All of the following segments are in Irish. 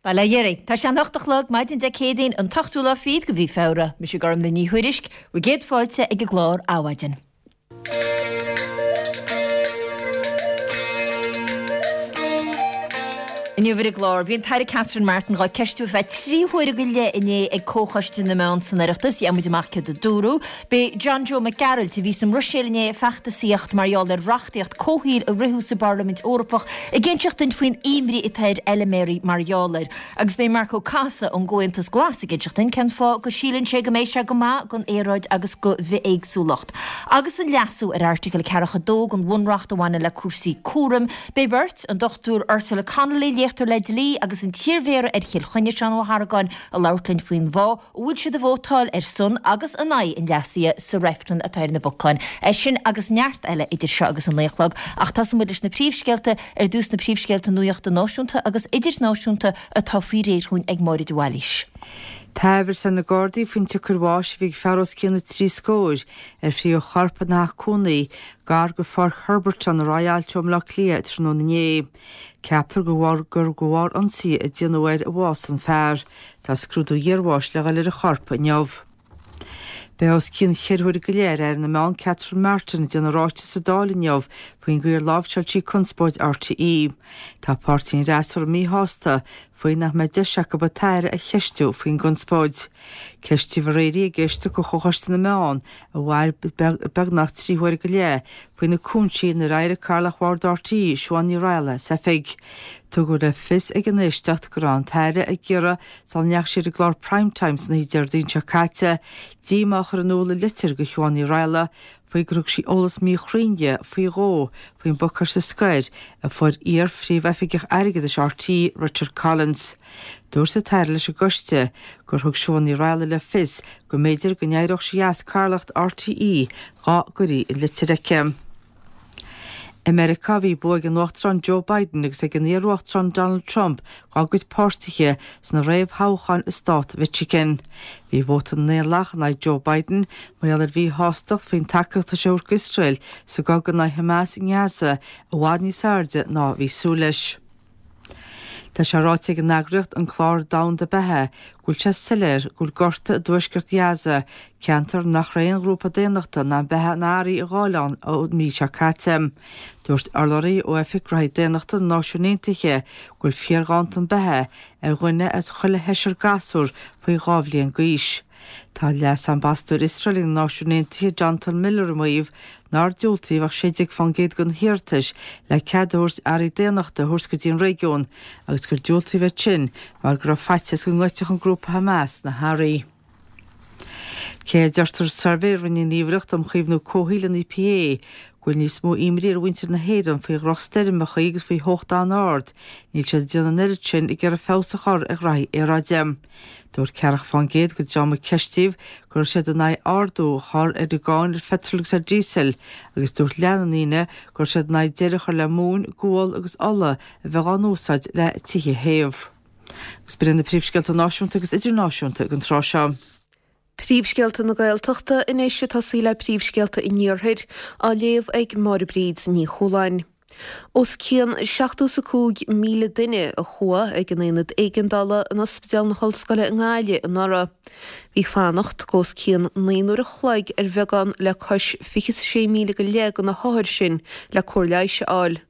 Bail ó Dhia oraibh. Tá sé an 8 a chlog, maidin Dé Céadaoin, an t-ochtú lá fichead de mhí Feabhra. Mise Gormlaith Ní Thuairisg, bhur gcéad fáilte ag an gclár Adhmhaidin. Inniu ar an gclár, bhí an tAire Catherine Martin dhá ceistiú ar feadh 3 huaire go leith inné ag Comhchoiste na Meán san Oireachtas. Gheobhaidh muid amach céard a dúradh. Beidh John Joe Mac Gearailt, a bhí sa mBruiséil inné ag feachtasaíocht mar gheall ar reachtaíocht comhshaoil a ritheadh sa bParlaimint Eorpach, ag inseacht duinn faoin imní atá ar fheiliméaraí mar gheall air. Agus beidh Marco Casa ón gComhaontas Glas ag inseacht duinn cén fáth go síleann sé go mbeidh sé go maith don aeráid agus do bhithéagsúlacht. Agus an leasú ar Airteagal 42 den Bhunreacht a bhaineann le cúrsaí cúraim, beidh beirt, an Dr Ursula Connolly, léachtóir le dlí, agus an t-iarmhéara ar Chill Chainnigh, Seán Ó hArgáin, ag labhairt linn faoin bhfáth a bhfuil siad ag vótáil ar son agus in aghaidh an leasaithe sa reifreann atá ar na bacáin. É sin agus neart eile idir seo agus an 9 a chlog, ach tosóidh muid leis na príomhscéalta, ar dtús na príomhscéalta nuachta náisiúnta agus idirnáisiúnta atá faoi réir dhúinn ag Máire de Bhailís. Tá amhras ar na Gardaí faoin tsiocair bháis a bhí ag fear os cionn na dtrí scór ar frítheadh a chorp ina theach cónaí gar go Pháirc Herberton ar aghaidh Aillte ó mBaile Átha Cliath tráthnóna inné. Ceaptar gur de bharr ionsaí a déanadh air a bhásaigh an fear. Tá scrúdú iarbháis le dhul ar an chorp inniu. Beidh os cionn cheithre huaire go leith ar Aire na Meán Catherine Martin ag déanamh ráiteas sa Dáil inniu faoin gcaoi ar láimhseáil sí conspóid RTÉ. Tá páirtí an fhreasúra míshásta faoi nach mbeidh deis acu an tAire a cheistiú faoin gconspóid. Ceistíodh aréir í ag éisteacht de Chomhchoiste na Meán a mhair beagnach 3 huaire go leith faoi na cúinsí inar éirigh Cathaoirleach Bhord RTÉ, Siobhán Ní Raghallaigh, as oifig. Tugadh le fios ag an éisteacht go raibh an tAire ag iarraidh, sula ndeachaigh sí ar an gclár Prime Time san oíche Déardaoin seo caite, díomá a chur in iúl i litir do Shiobhán Ní Raghallaigh faoi gur thug sí eolas míchruinn di faoi dhó faoin bpacáiste scoir a fuair iar-phríomhoifigeach airgeadais RTÉ, Richard Collins. Dúirt an tAire leis an gcoiste gur thug Siobhán Ní Raghallaigh le fios go mb'fhéidir go n-éireodh sí as cathaoirleacht RTÉ dá gcuirfí an litir aici. I Meiriceá, bhí bua ag an Uachtarán Joe Biden agus ag an iar-Uachtarán Donald Trump dá gcuid páirtithe sna réamhthoghcháin i stát Mhichigan. Bhí vóta na nDaonlathach in aghaidh Joe Biden mar gheall ar mhíshástacht faoin tacaíocht atá sé a thabhairt d'Iosrael sa gcogadh in aghaidh Hamas i nGaza i bhfad níos airde ná a bhí súil leis. Tá sé ráite ag an eagraíocht an Clár Domhanda Beatha go bhfuil sé soiléir go bhfuil gorta i dtuaisceart Ghaza, ceantar nach raibh aon ghrúpa daonnachta in ann beatha ná earraí a ghabháil ann ón mí seo caite. Dúirt urlabhraí ó Oifig Gnóthaí Daonnachta na Náisiún Aontaithe go bhfuil fíorghanntan beatha ar dhuine as chuile sheisear gasúr faoi dhá bhliain d'aois. Tá Leas-Ambasadóir Iosrael ag na Náisiúin Aontaithe, Jonathan Miller ag maíomh nár diúltaíodh ach 16% de na hiarratais le cead a thabhairt earraí daonnachta a thabhairt go dtí an réigiún agus gur diúltaíodh iad sin mar go raibh faitíos go ngoidfeadh an grúpa Hamas na hearraí. Cé a deirtear i suirbhé a rinne an Ghníomhaireacht um Chaomhnú Comhshaoil, an EPA, go bhfuil níos mó imní ar mhuintir na hÉireann faoi dhrochstoirmeacha agus faoi theocht an-ard, níl siad ag déanamh an oiread sin ag iarraidh feabhas a chur ar ghraithí aeráide. Dúirt 40% den dream a ceistíodh go raibh siad in aghaidh ardú a chur ar an gcáin ar pheitreal agus ar dhíosal agus dúirt leath na ndaoine go raibh siad in aghaidh deireadh a chur le móin, gual agus ola a bheith á n-úsáid le tithe a théamh. Agus b'in iad na príomhscéalta náisiúnta agus idirnáisiúnta ag an tráth seo. Príomhscéalta na Gaeltachta anois ag tosaí le príomhscéalta an Iarthair, á léamh ag Máire Bríd Ní Chualáin. Os cionn 75,000 duine a chuaigh ag an Aonad Éigeandála in Ospidéal na hOllscoile i nGaillimh anuraidh. Bhí fanacht de os cionn 9 n-uair a chloig ar bheagán le cois 26,000 go leith de na hothair sin le cóir leighis a fháil.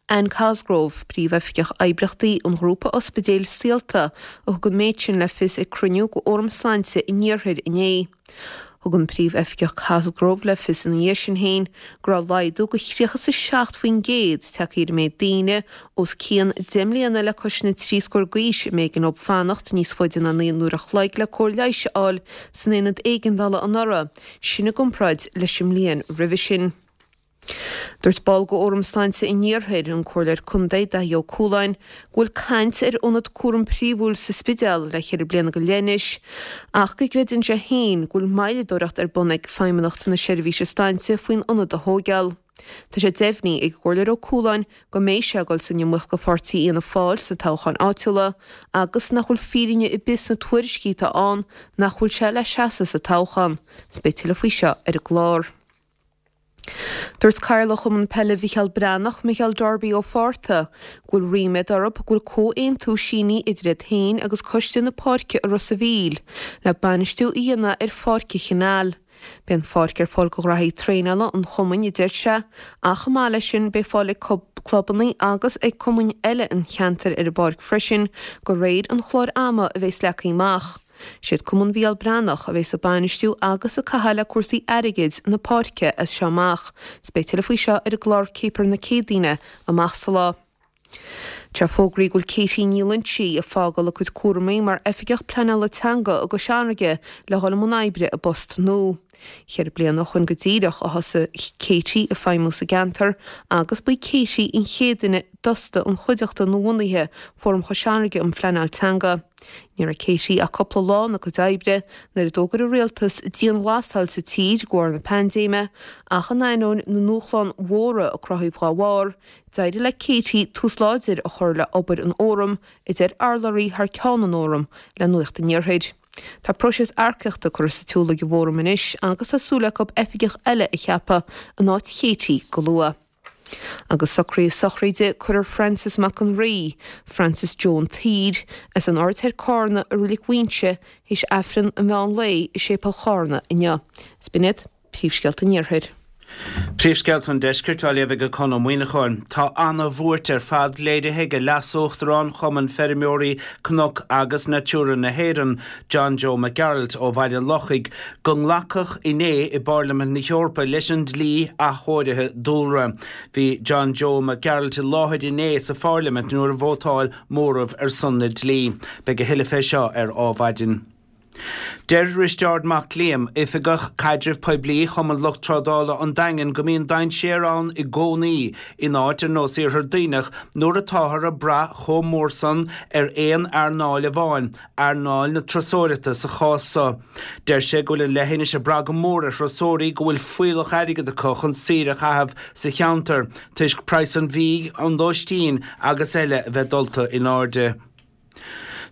Anne Cosgrove, Príomhoifigeach Oibríochtaí an ghrúpa ospidéil Saolta, a thug an méid sin le fios ag cruinniú de Fhóram Sláinte an Iarthair inné. Thug an Príomhoifigeach Cosgrove le fios ina dhiaidh sin féin go raibh laghdú de 37% tagtha ar an méid daoine os cionn 10 mbliana le cois na dtrí scór d'aois a mb'éigean dóibh fanacht níos faide ná 9 n-uair a chloig le cóir leighis a fháil san aonad éigeandála anuraidh, sin i gcomparáid leis an mbliain roimhe sin. Dúirt ball de Fhóram Sláinte an Iarthair, an Comhairleoir Contae Daithí Ó Cualáin, go bhfuil caint ar ionad cúraim príomhúil sa Spidéal le ceithre bliana go leith anois ach go gcreideann sé féin go bhfuil moilleadóireacht ar bun ag Feidhmeannacht na Seirbhíse Sláinte faoin ionad a thóigeáil. Tá sé deimhnithe ag an gComhairleoir Ó Cualáin go mbeidh sé ag dul san iomaíocht do pháirtí Fhianna Fáil sna toghcháin áitiúla agus nach bhfuil fírinne ar bith sna tuairiscí atá ann nach bhfuil sé le seasamh sa toghchán. Beidh tuilleadh faoi seo ar an gclár. Dúirt Cathaoirleach Chumann Peile Mhicheál Breathnach, Micheál Darby Ó Fátharta, go bhfuil ríméad orthu go bhfuil comhaontú sínithe idir iad féin agus Coiste na Páirce i Ros a' Mhíl le bainistiú a dhéanamh ar Pháirc an Chanáil. Beidh an pháirc ar fáil do ghraithí traenála an chumainn, a deir sé, ach chomh maith leis sin beidh fáil ag clubanna agus ag cumainn eile an cheantair ar an bpáirc freisin de réir an chláir ama a bheas leagtha amach. Siad Cumann Mhicheál Breathnach a bheas ag bainistiú agus ag caitheamh le cúrsaí airgid na páirce as seo amach. 'S beidh tuilleadh faoi seo ar an gclár Céipear na Céadaoine amach sa lá. Tá fógraithe go bhfuil Katie Ní Loinsigh ag fágáil a cuid cúramaí mar Oifigeach Pleanála Teanga i gCois Fharraige le dhul i mbun oibre i bpost nua. Cheithre bliana ó shoin go díreach a thosaigh Katie ag feidhmiú sa gceantar agus ba í Katie an chéad duine d'fhostaigh an chuideachta nuabhunaithe, Fóram Chois Fharraige um Phleanáil Teanga. Ní raibh Katie ach cúpla lá ina cuid oibre nuair a d'fhógair an rialtas dianghlasáil sa tír de bharr na paindéime, ach in ainneoin na ndúshlán mhóra a cruthaíodh dá bharr, d'éirigh le Katie tús láidir a chur le obair an Fhóraim, a deir urlabhraí thar ceann an Fhóraim le Nuacht an Iarthair. Tá próiseas earcaíochta curtha sa tsiúl ag an bhFóram anois agus tá súil acu oifigeach eile a cheapadh in áit Katie go luath. Agus socruithe sochraide cuirfear Francis Mac an Rí, Francis Joe an tSaoir, as an Aird Thoir Cárna i Reilig Mhuighinse théis Aifreann an mheán lae i Séipéal Chárna inniu. Is b'in iad príomhscéalta an Iarthair. Príomhscéalta an Deiscirt á léamh ag Conn Ó Muíneacháin. Tá ana-bhuairt ar fad léirithe ag Leas-Uachtarán Chumann Feirmeoirí Cnoc agus Natura na hÉireann, John Joe Mac Gearailt ó Bhaile an Lochaigh, go nglacadh inné i bPairlimint na hEorpa leis an dlí athchóirithe dúlra. Bhí John Joe Mac Gearailt i láthair inné sa phairlimint nuair a vótáil móramh ar son na dlí. Beidh a thuilleadh fé seo ar Ádhmhaidin. Deir Risteárd Mac Liam, Oifigeach Caidrimh Poiblí Chumann Lucht Trádála an Daingin go mbíonn dainséar ann i gcónaí in áit ar nós Iarthar Duibhneach nuair atáthar ag brath chomh mór san ar aon earnáil amháin earnáil na turasóireachta sa chás so. Deir sé go bhfuil an leithinis ag brath go mór ar thurasóirí go bhfuil fuíollach airgid acu chun saoire a chaitheamh sa cheantar toisc praghas an bhídh, an lóistín agus eile a bheith dulta in airde.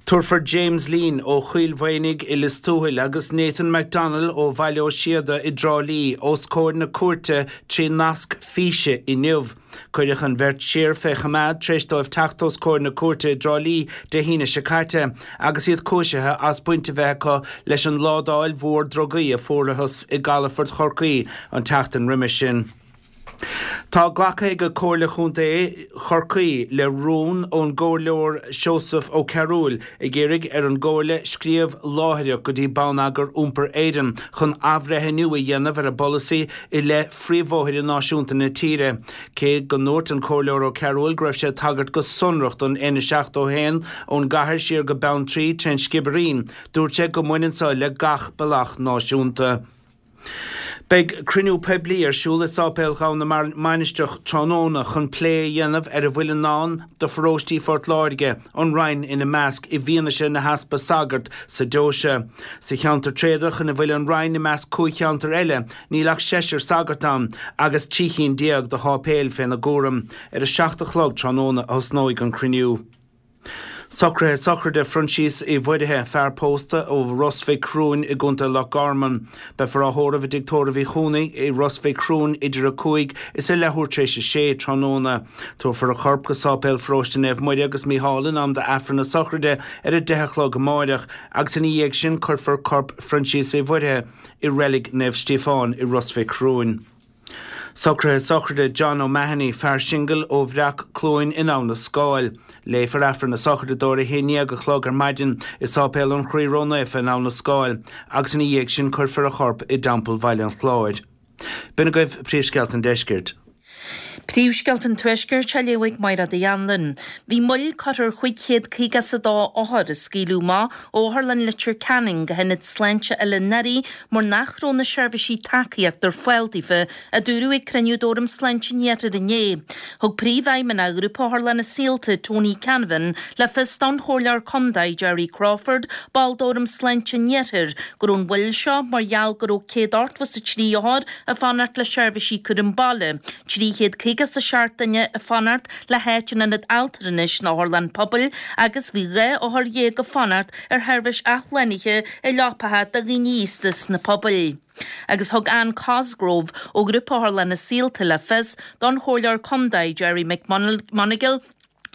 Tabharfar James Leen ó Choill Mhaonaigh i Lios Tuathail agus Nathan McDonnell ó Bhaile Ó Síoda i dTrá Lí os comhair na cúirte trí nasc físe inniu. Cuireadh an bheirt siar fé choimeád tar éis dóibh teacht os comhair na cúirte i dTrá Lí Dé hAoine seo caite agus iad cúisithe as baint a bheith acu leis an ládáil mhór drugaí a fuarathas i gcalafort Chorcaí an tseachtain roimis sin. Tá glactha ag Comhairle Chontae Chorcaí le rún ón gComhairleoir Seosamh Ó Cearúil ag iarraidh ar an gComhairle scríobh láithreach go dtí Bonneagar Iompair Éireann chun athbhreithniú a dhéanamh ar a bpolasaí i leith phríomhbhóithre náisiúnta na tíre. Cé go ndúirt an Comhairleoir Ó Cearúil go raibh sé ag tagairt go sonrach don N71 ón gcathair siar go Beanntraí trén Sciobairín, dúirt sé go mbaineann so le gach bealach náisiúnta. Beidh cruinniú poiblí ar siúl i Sáipéal Ghabha na Mainistreach tráthnóna chun plé a dhéanamh ar a bhfuil i ndán do pharóistí Phort Láirge, an Rinn ina measc, i bhfianaise na heaspa sagart sa deoise. Sa cheantar tréadach ina bhfuil an Rinn i measc 5 cheantar eile, Níl ach seisear sagart ann agus 13 chinn de sháipéil féna gcúram. Ar a 7 a chlog tráthnóna a thosnóidh an cruinniú. Socruithe sochraide Phroinsias Uí Mhuirithe, fear pósta ó Ros Mhic Thriúin i gContae Loch Garman. Beifear á thórramh i dTigh Tórraimh Uí Chuanaigh i Ros Mhic Thriúin idir 5 is a leathuair tar éis a sé tráthnóna. Tabharfar a chorp go Sáipéal Pharóiste Naomh Muire agus Mícheál in am d'Aifreann na sochraide ar a 10 a chlog amáireach agus ina dhiaidh sin cuirfear corp Phroinsias Uí Mhuirithe i Reilig Naomh Stíofán i Ros Mhic Thriúin. Socruithe sochraide John O'Mahony, fear singil ó Bhreac Cluain in Abha na Scáil. Léifear Aifreann na sochraide dó ar a 11 a chlog ar maidin i Sáipéal an Chroí Ró-Naofa in Abha na Scáil agus ina dhiaidh sin cuirfear a chorp i dTeampall Bhaile an Chláir. B'in agaibh príomhscéalta an deiscirt. Príomhscéalta an Tuaiscirt á léamh ag Máire Uí Anluain. Bhí moill curtha ar 552 othar a scaoileadh amach ó Otharlann Leitir Ceanainn go hIonad Sláinte Oileán Thoraí mar nach raibh na seirbhísí tacaíochta ar fáil daofa, a dúradh ag cruinniú d'Fhóram Sláinte an Iarthair inné. Thug Príomhfheidhmeannach Ghrúpa Otharlanna Saolta, Tony Canavan, le fios don Chomhairleoir Contae, Gerry Crawford, ball d'Fhóram Sláinte an Iarthair, go raibh an mhoill seo mar gheall go raibh 183 othar ag fanacht le seirbhísí cúram baile, 350. 57 duine ag fanacht le háit in ionad altranais nó otharlann pobail agus bhí 12 othar ag fanacht ar sheirbhís athshlánaithe i leapacha do dhaoine aosta sna pobail. Agus thug Anne Cosgrove ó Ghrúpa Otharlanna Saolta le fios don Chomhairleoir Contae Gerry McMonagle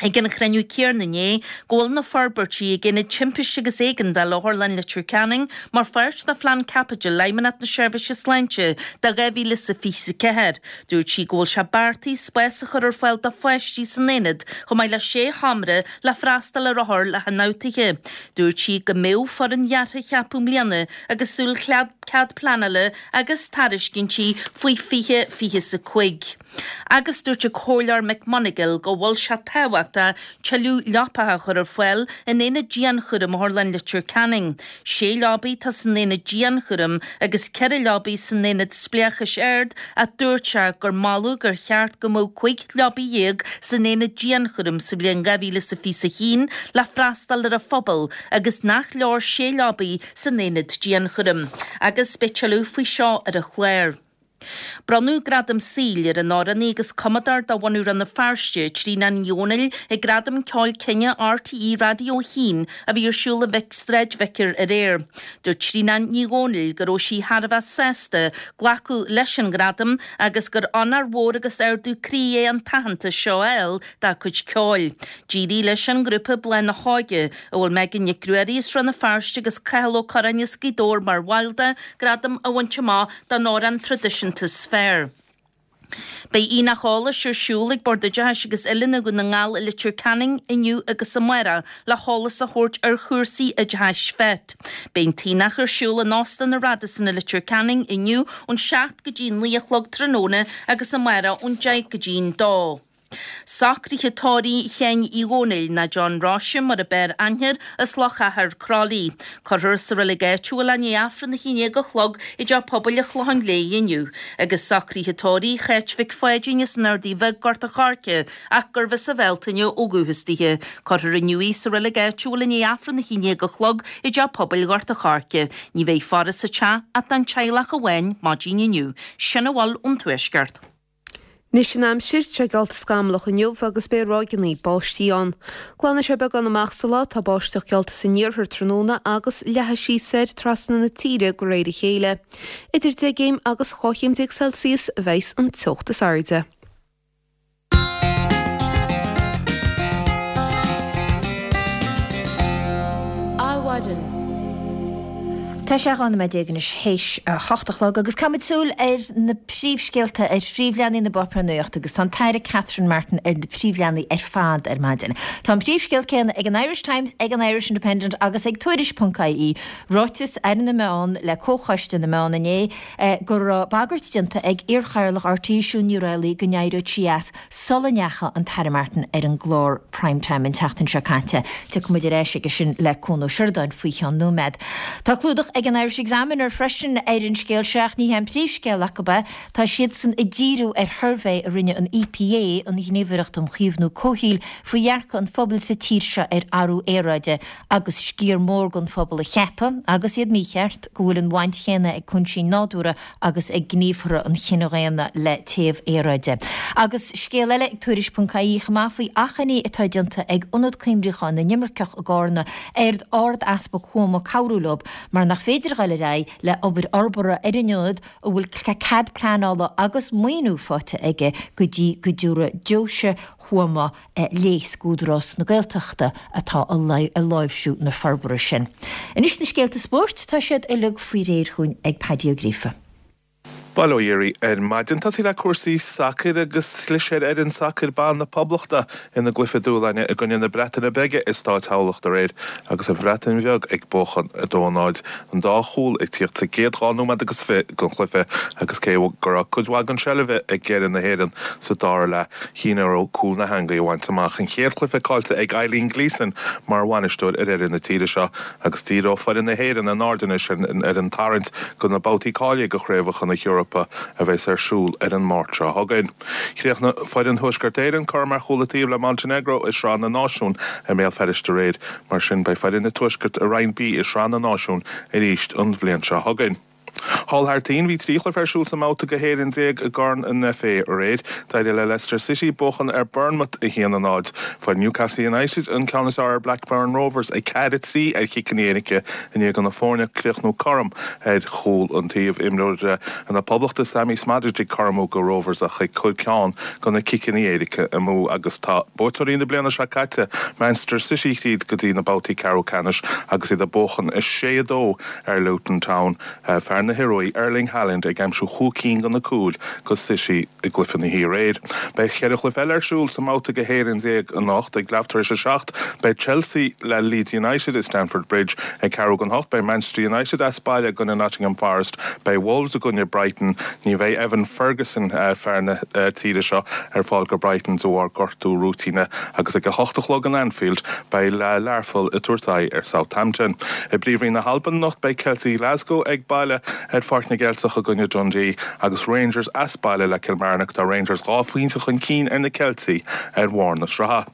ag an chruinniú céanna inné go bhfuil na forbairtí ag Aonad Timpiste agus Éigeandála Otharlann Leitir Ceanainn mar pháirt de Phlean Caipitil Fheidhmeannacht na Seirbhíse Sláinte do 2024. Dúirt sí go bhfuil sé beartaithe spás a chur ar fáil do pháistí san aonad chomh maith le sé sheomra le freastal ar othair le hionfhabhtuithe. Dúirt sí go mbeadh foireann dheartha á ceapadh i mbliana agus súil cead pleanála agus tairiscintí faoi 2025. Agus dúirt an Comhairleoir McMonagle go bhfuil sé tábhachtach tuilleadh leapacha a chur ar fáil in aonad dianchúraim Otharlann Leitir Ceanainn. Sé leabaidh atá san aonad dianchúraim agus ceithre leabaidh san aonad spleáchais ard ach dúirt sé gur moladh gur cheart go mbeadh 15 leabaidh san aonad dianchúraim sa bhliain 2021 le freastal ar an phobal agus nach leor sé leabaidh san aonad dianchúraim. Agus beidh tuilleadh faoi seo ar an chlár. Bronnadh Gradam Saoil ar an amhránaí agus cumadóir de bhunadh Rann na Feirste, Tríona Ní Dhomhnaill, ag Gradaim Ceoil Cine RTÉ Raidió 1 a bhí ar siúl i Sráid Vicar aréir. Dúirt Tríona Ní Dhomhnaill go raibh sí thar a bheith sásta glacadh leis an ghradam agus gur onóir mhór agus ardú croí é an t-aitheantas seo a fháil dá cuid ceoil. D'éirigh leis an ngrúpa Bláth na hÓige, a bhfuil Megan Nic Ruairí as Rann na Feirste agus Cathal Ó Curráin as Gaoth Dobhair mar bhaill de, gradam a bhaint amach don amhrán traidisiúnta is fearr. Beidh Aonach Eolais ar siúl ag Bord Oideachais agus Oiliúna Dhún na nGall i Leitir Ceanainn inniu agus amárach le heolas a thabhairt ar chúrsaí oideachais FET. Beidh an t-aonach ar siúl in Óstán an Radisson i Leitir Ceanainn inniu ón 7 go dtí 9 a chlog tráthnóna agus amárach ón 10 go dtí an 2. Socruithe tórraimh Sheáin Uí Dhónaill, nó John Róise mar a b'fhearr aithne air, as Loch Achair, Croithlí. Cuirfear sa reilig áitiúil é i ndiaidh Aifreann a 11 a chlog i dTeach Pobail an Chlocháin Léith inniu. Agus socruithe tórraimh Cháit Mhic Pháidín as an Ardaidh Bheag, Gort a' Choirce, ach gurbh as an Bhealtaine ó dhúchas dithe. Cuirfear inniu í sa reilig áitiúil i ndiaidh Aifreann a 11 a chlog i dTeach Pobail Ghort a' Choirce. Ní bheidh faire sa teach ach don teaghlach amháin maidin inniu. Sin a bhfuil ón Tuaisceart. Anois an aimsir, tá sé geallta scamallach inniu agus beidh ráigeanna báistí ann. Glanfaidh sé beagán amach sa lá, tá báisteach geallta san iarthar tráthnóna agus leathfaidh sí soir trasna na tíre de réir a chéile. Idir 10 gcéim agus 12 chéim Celsius a bheas an teocht is airde. Adhmhaidin. Tá sé 12 nóiméad anois théis a hocht a chlog agus caithfimid súil ar na príomhscéalta ar phríomhleathanaigh na bpáipéar nuachta agus tá an tAire Catherine Martin ar na príomhleathanaigh ar fad ar maidin. Tá an príomhscéal céanna ag an Irish Times, ag an Irish Independent agus ag Tuairisc.ie, ráiteas Aire na Meán le Comhchoiste na Meán inné go raibh bagairt déanta ag iarchathaoirleach RTÉ Siún Ní Raghallaigh go n-éireodh sí as sula ndeachaigh an tAire Martin ar an gclár Prime Time an tseachtain seo caite. Tiocfaidh muid ar ais aige sin le Cuan Ó Seireadáin faoi cheann nóiméad. Tá clúdach ag an Irish Examiner freisin ar an scéal seo ach ní hé an príomhscéal acu é. Tá siadsan ag díriú ar shuirbhé a rinne an EPA, an Ghníomhaireacht um Chaomhnú Comhshaoil, faoi dhearcadh an phobail sa tír seo ar athrú aeráide agus sciar mór den phobal ag ceapadh, agus iad mícheart, go bhfuil an bhaint chéanna ag cúinsí nádúrtha agus ag gníomhartha an chine dhaonna le téamh aeráide. Agus scéal eile ag Tuairisc ponc ie chomh maith faoi achainí atá déanta ag Ionad Coimriúcháin na nImirceach i gCárna ar Ard-Easpag Thuama cabhrú leo mar nach féidir a ghoil ar aghaidh le obair fhorbartha ar an ionad a bhfuil cead pleanála agus maoiniú faighte aige go dtí go dtabharfaidh Deoise Thuama léas d'Údarás na Gaeltachta atá ag láimhsiú na forbartha sin. Anois na scéalta spóirt, tá siad uilig faoi réir chugainn ag Paddy Ó Gríofa. Bail ó Dhia oraibh ar maidin. Tosaí le cúrsaí sacair agus chlis ar fhoireann sacair ban na Poblachta ina gcluiche dúshláin i gcoinne na Breataine Bige i Stáit Thamhlachta aréir agus an Bhreatain Bheag ag buachan 2-0. An dá chúl ag tíocht sa gcéad dhá nóiméad agus 20 den chluiche agus cé go raibh cuid mhaith den seilbh ag fhoireann na hÉireann sa dara leath, Chinn orthu cúl na heangaí a bhaint amach. An chéad chluiche caillte ag Eileen Gleeson mar bhainisteoir ar fhoireann na tíre seo agus díreoidh foireann na hÉireann a n-aird anois ar an tarraingt do na babhtaí cáilithe do Chraobhacha na hEorpa a bheas ar siúl ar an Máirt seo chugainn. Chríochnaigh foireann Thuaisceart Éireann cothrom ar chúl an taobh le Montenegro i Sraith na Náisiún i mBéal Feirste aréir. Mar sin beidh foireann an Tuaiscirt i Roinn B i Sraith na Náisiún arís an bhliain seo chugainn. Thall thar toinn, bhí 3 chluiche ar siúl sa mbabhta go 11 i gCorn an FA aréir. D'éirigh le Leicester City buachan ar Bournemouth 1-0. Fuair Newcastle United an ceann is fearr ar Blackburn Rovers 4-3 ar chiceanna éirice i ndiaidh do na foirne críochnú cothrom ar chúl an taobh. Imreoir na Poblachta Sammy Szmodics ag cothromú go Rovers ach ag cur ceann go na ciceanna éirice amú agus tá buaiteoirí na bliana seo caite Manchester City thríd go dtí na babhtaí ceathrú ceannais agus iad ag buachan 6-2 ar Luton Town. Fear na hIorua, Erling Haaland ag aimsiú chúig cinn de na cúil go City i gcluiche na hoíche aréir. Beidh cheithre chluiche eile ar siúl sa mbabhta go 11 anocht. Ag leath tar éis a 7 beidh Chelsea le Leeds United i Stamford Bridge. Ag ceathrú don hocht beidh Manchester United as baile i gcoinne Nottingham Forest. Beidh Wolves i gcoinne Brighton. Ní bheidh Evan Ferguson, fear na tíre seo, ar fáil go Brighton de bharr gortú rúitíne agus ag a hocht a chlog in Anfield beidh Learpholl ag tabhairt aghaidh ar Southampton. I bPríomhroinn na hAlban anocht beidh Ceiltigh Ghlasgow ag baile ar Pháirc na gCeilteach i gcoinne Dundee agus Rangers as baile le Kilmarnock. Tá Rangers 2 phointe chun cinn ar na Ceiltigh ar bharr na sraithe.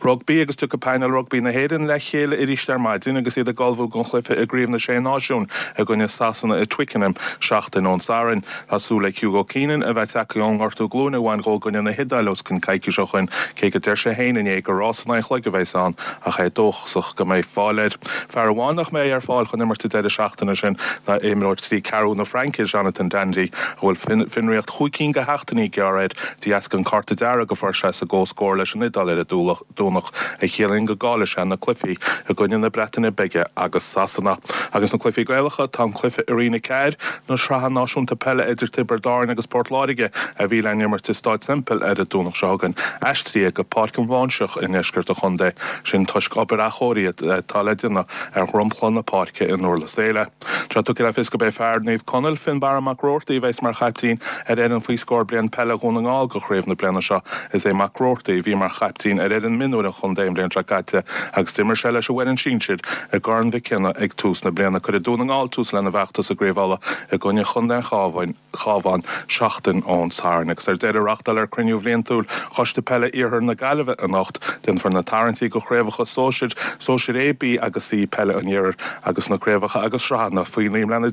Rugbaí agus tiocfaidh painéal rugbaí na hÉireann le chéile arís ar maidin agus iad ag ullmhú don chluiche i gCraobh na Sé Náisiún i gcoinne Sasana i Twickenham seachtain ón Satharn. Tá súil ag Hugo Keenan a bheith tagtha ón ngortú glúine a bhain dhó i gcoinne na hIodáile os cionn coicís ó shoin, cé go deir sé féin inné gur rás in aghaidh an chloig a bheas ann ach é dóchasach go mbeidh fáil air. Fear amháin nach mbeidh ar fáil chun imirt an deireadh seachtaine sin ná imreoir trí ceathrú na Fraince, Jonathan Danty, a bhfuil fionraíocht chúig cinn de sheachtainí gearrtha air de dheasca an cárta dearg a fuair sé sa gcomhscór leis an Iodáil ar an Domhnach, a chiallaíonn go gcaillfidh sé na cluichí i gcoinne na Breataine Bige agus Sasana. Agus na cluichí Gaelacha, tá an cluiche i Roinn 4 na Sraithe Náisiúnta Peile idir Tiobraid Árann agus Port Láirge a bhí le n-imirt i Stáid Semple ar an Domhnach seo chugainn aistrithe go Páirc an Bháinseach i ndeisceart an chontae, sin toisc obair athchóirithe atá le déanamh ar dhromchla na páirce i nDurlas Éile. Tá tugtha le fios gurb é fear Naomh Conaill, Fionnbarra Mac Roarty, a bheas mar chaiptín ar fhoireann faoi scór bliain peile Dhún na nGall go chraobh na bliana seo. Is é Mac Roarty a bhí mar chaiptín ar fhoireann mionúir an chontae an bhliain seo caite agus d'imir sé leis an bhfoireann sinsir i gCorn Mhic Cionnaith ag tús na bliana. Cuirfidh Dún na nGall tús lena bhfeachtas i gCraobh Uladh i gcoinne chontae an Chabháin. Chabhán seachtain ón Satharn. Agus ar deireadh, reáchtáilfear cruinniú bhliantúil Choiste Peile Iarthar na Gaillimhe anocht. Déanfar na tarraingtí go chraobhacha sóisir, Sóisir A, B agus C Peile an Iarthair agus na craobhacha agus sraitheanna faoi 19 mbliana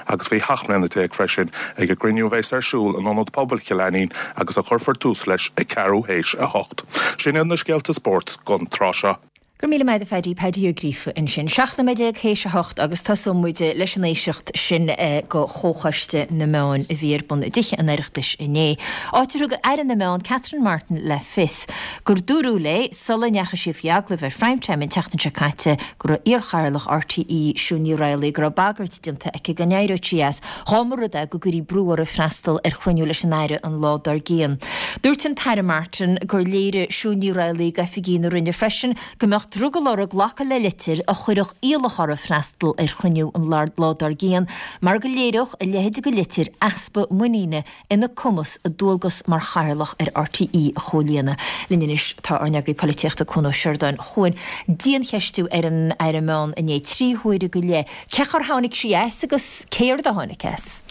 agus faoi 17 mbliana freisin ag an gcruinniú a bheas ar siúl in Ionad Pobail Chill Ainnín agus a chuirfear tús leis ag ceathrú théis 8. Sin iad na scéalta spóirt don tráth seo. Go raibh míle maith agat a Phaddy, Paddy Ó Gríofa ansin. 17 nóiméad théis a hocht agus tosóidh muid leis an éisteacht sin go Chomhchoiste na Meán a bhí ar bun i dTithe an Oireachtais inné, áit ar thug Aire na Meán Catherine Martin le fios gur dúradh léi sula ndeachaigh sí faoi agallamh ar Prime Time an tseachtain seo caite go raibh iarchathaoirleach RTÉ Siún Ní Raghallaigh go raibh bagairt déanta aici go n-éireodh sí as Dá mba rud é go gcuirí brú uirthi freastal ar chruinniú leis an Aire an lá dár gcionn. Dúirt an tAire Martin gur léirigh Siún Ní Raghallaigh d'oifigigh na Roinne freisin go mbeadh drogall uirthi glacadh le litir a chuirfeadh iallach uirthi freastal ar chruinniú an lá dár gcionn mar go léireodh a leithéid de litir easpa muiníne ina cumas a dualgas mar chathaoirleach ar RTÉ a chomhlíonadh. Linn anois tá ár n-eagraí polaitíochta Cuan Ó Seireadáin. A Chuain, diancheistiú ar an Aire Meán inné, 3 huaire go leith. Cé chor tháinig sí as agus céard a tháinig as?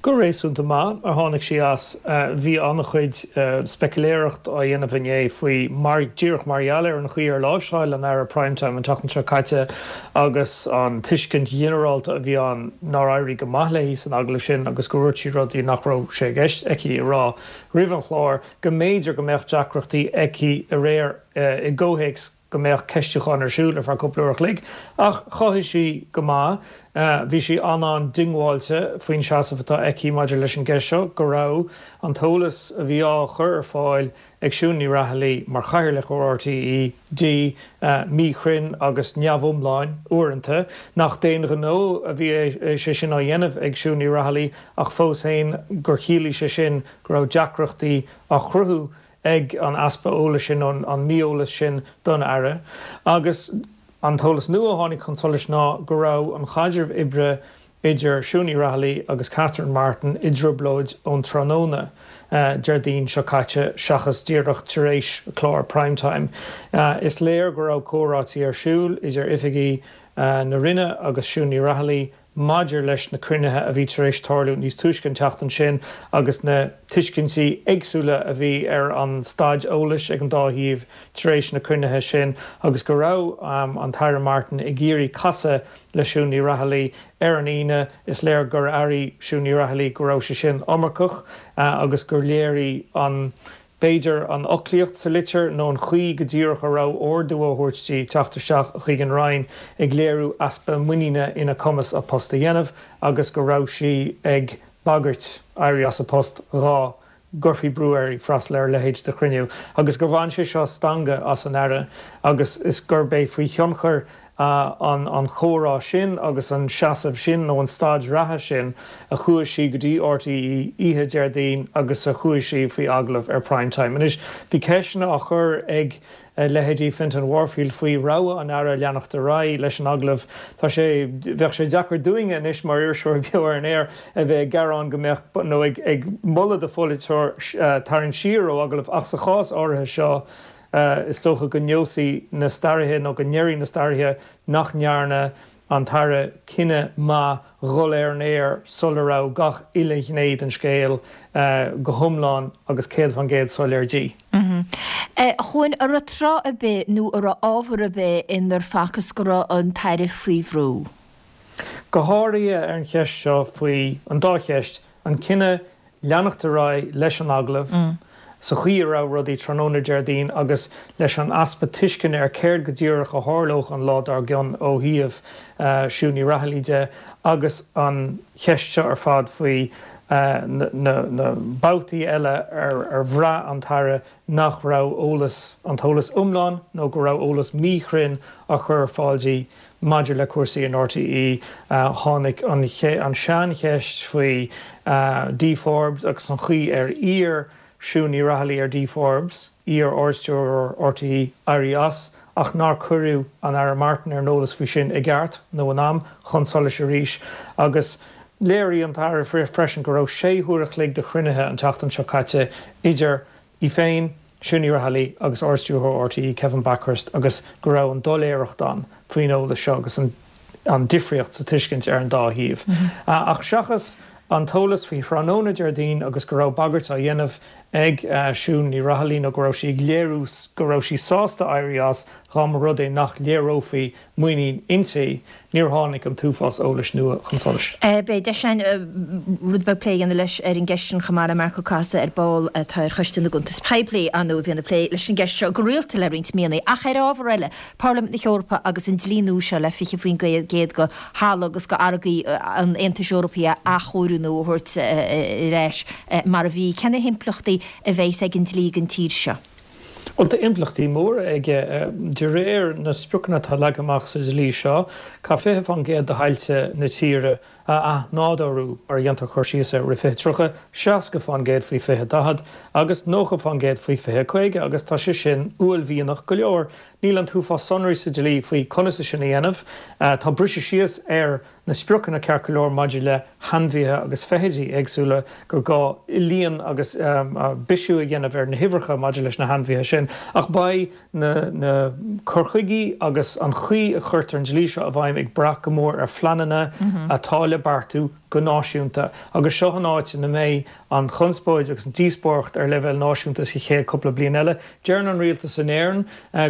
Go réasúnta maith a tháinig sí as. Bhí an-chuid speiciléireacht á dhéanamh inné faoi mar, díreach mar gheall ar an chaoi ar láimhseáil an Aire Prime Time an tseachtain seo caite agus an tuiscint ghinearálta a bhí ann nár éirigh go maith léi san agallamh sin agus go ndúirt sí rudaí nach raibh sé i gceist aici a rá roimh an chlár, go mb'fhéidir go mbeadh deacrachtaí aici aréir i gcomhthéacs go mbeadh ceistiúchán ar siúl ar feadh cúpla uair a chloig. Ach chothaigh sí go maith. Bhí sí an-an-diongbháilte faoin seasamh atá aici maidir leis an gceist seo, go raibh an t-eolas a bhí á chur ar fáil ag Siún Ní Raghallaigh mar Chathaoirleach ar RTÉ di, míchruinn agus neamhiomlán uaireanta, nach d'aon ghnó a bhí sé sin á dhéanamh ag Siún Ní Raghallaigh ach fós féin gur chiallaigh sé sin go raibh deacrachtaí á chruthú ag an easpa eolais sin, nó an mí-eolas sin don Aire. Agus an t-eolas nua a tháinig chun solais ná go raibh an chaidreamh oibre idir Siún Ní Raghallaigh agus Catherine Martin i dtrioblóid ón tráthnóna Déardaoin seo caite seachas díreach tar éis chlár Prime Time. Is léir go raibh comhráití ar siúl idir oifigigh na Roinne agus Siún Ní Raghallaigh. maidir leis na cruinnithe a bhí tar éis tarlú níos túisce an tseachtain sin agus na tuiscintí éagsúla a bhí ar an staid eolais ag an dá thaobh tar éis na cruinnithe sin agus go raibh an tAire Martin ag iarraidh casadh le Siún Ní Raghallaigh ar an Aoine. Is léir gur airigh Siún Ní Raghallaigh go raibh sé sin iomarcach agus gur léirigh an B'fhéidir an fhoclaíocht sa litir nó an chaoi go díreach a raibh ordú á thabhairt di teacht isteach chuig an Roinn ag léiriú easpa muiníne ina cumas a post a dhéanamh agus go raibh sí ag bagairt éirí as a post dhá gcuirfí brú uirthi freastal ar a leithéid de chruinniú agus gur bhain sé seo stangadh as an Aire agus is gurb é faoi thionchar an chomhrá sin agus an seasamh sin nó an staid reatha sin a chuaigh sí go dtí RTÉ oíche Déardaoin agus a chuaigh sí faoi agallamh ar Prime Time. Anois, bhí ceisteanna á chur ag leithéidí Fintan Warfield faoi rogha an Aire leanacht ar aghaidh leis an agallamh. Tá sé, bheadh sé deacair dúinne anois mar iriseoirí beo ar an aer a bheith ag gearán go mbeadh, nó ag moladh do pholaiteoir tarraingt siar ó agallamh ach sa chás áirithe seo, Is dócha go neosfaidh na staraithe nó go ndéarfaidh na staraithe nach ndearna an tAire cinneadh maith dhul ar an aer sula raibh gach uile ghné den scéal go hiomlán agus 100% soiléir di. A Chuain, an raibh tráth ar bith nó an raibh ábhar ar bith inar facthas go raibh an tAire faoi bhrú? Go háirithe ar an cheist seo faoi, an dá cheist, an cinneadh leanacht ar aghaidh leis an agallamh sa chaoi a raibh rudaí tráthnóna Déardaoin agus leis an easpa tuisceana ar céard go díreach a tharlódh an lá dár gcionn ó thaobh Siún Ní Raghallaigh de agus an cheist seo ar fad faoi na babhtaí eile ar bhraith an tAire nach raibh eolas, an t-eolas iomlán nó go raibh eolas míchruinn á chur ar fáil di maidir le cúrsaí in RTÉ. Tháinig an seancheist faoi Dee Forbes agus an chaoi ar iarr Siún Ní Raghallaigh ar Dee Forbes, iar-Ardstiúrthóir RTÉ, éirí as ach nár cuireadh an Aire Martin ar an eolas faoi sin i gceart nó in am chun solais arís agus léirigh an tAire freisin go raibh sé huaire a chloig de chruinnithe an tseachtain seo caite idir í féin, Siún Ní Raghallaigh agus Ard-Stiúrthóir RTÉ Kevin Bakhurst agus go raibh an doiléireacht ann faoin eolas seo agus an difríocht sa tuiscint ar an dá thaobh. Ach seachas an t-eolas faoi thráthnóna Déardaoin agus go raibh bagairt á dhéanamh ag Siún Ní Raghallaigh nó go raibh sí ag léiriú go raibh sí sásta éirí as dá mba rud é nach léireofaí muinín inti, níor tháinig an t-uafás eolais nua chun solais. Beidh deis againn rud beag plé a dhéanamh leis ar an gceist sin chomh maith le Marc Ó Cathasaigh ar ball atá ar Choiste na gCuntas Poiblí, ar ndóigh, a bhíonn ag plé leis an gceist seo go rialta le roinnt míonna. Ach ar ábhar eile, Parlaimint na hEorpa agus an dlí nua seo le 20% de thalamh agus de fharraigí an Aontais Eorpaigh a athchóiriú nó a thabhairt ar ais mar a bhí, cé na himpleachtaí a bheas ag an dlí don tír seo? Bhuel, tá impleachtaí móra aige. De réir na spriocanna atá leagtha amach sa dlí seo, caithfear 20% de thailte na tíre a athnádúrú, mar a dhéantar cur síos air, roimh 2030, 60% faoi 2040 agus 90% faoi 2050 agus tá sé sin uaillmhianach go leor. Níl an t-uafás sonraí sa dlí faoi conas é sin a dhéanamh. Tá briseadh síos ar na spriocanna ceart go leor maidir le hainmhithe agus feithidí éagsúla, gur gá líon agus bisiú a dhéanamh ar na huimhreacha maidir leis na hainmhithe sin. Ach beidh na na cur chuigí agus an chaoi a chuirtear an dlí seo i bhfeidhm ag brath go mór ar phleananna atá le beartú go náisiúnta. Agus seo an áit ina mbeidh an chonspóid agus an díospóireacht ar leibhéal náisiúnta sa chéad cúpla bliain eile. Deireann an rialtas in Éirinn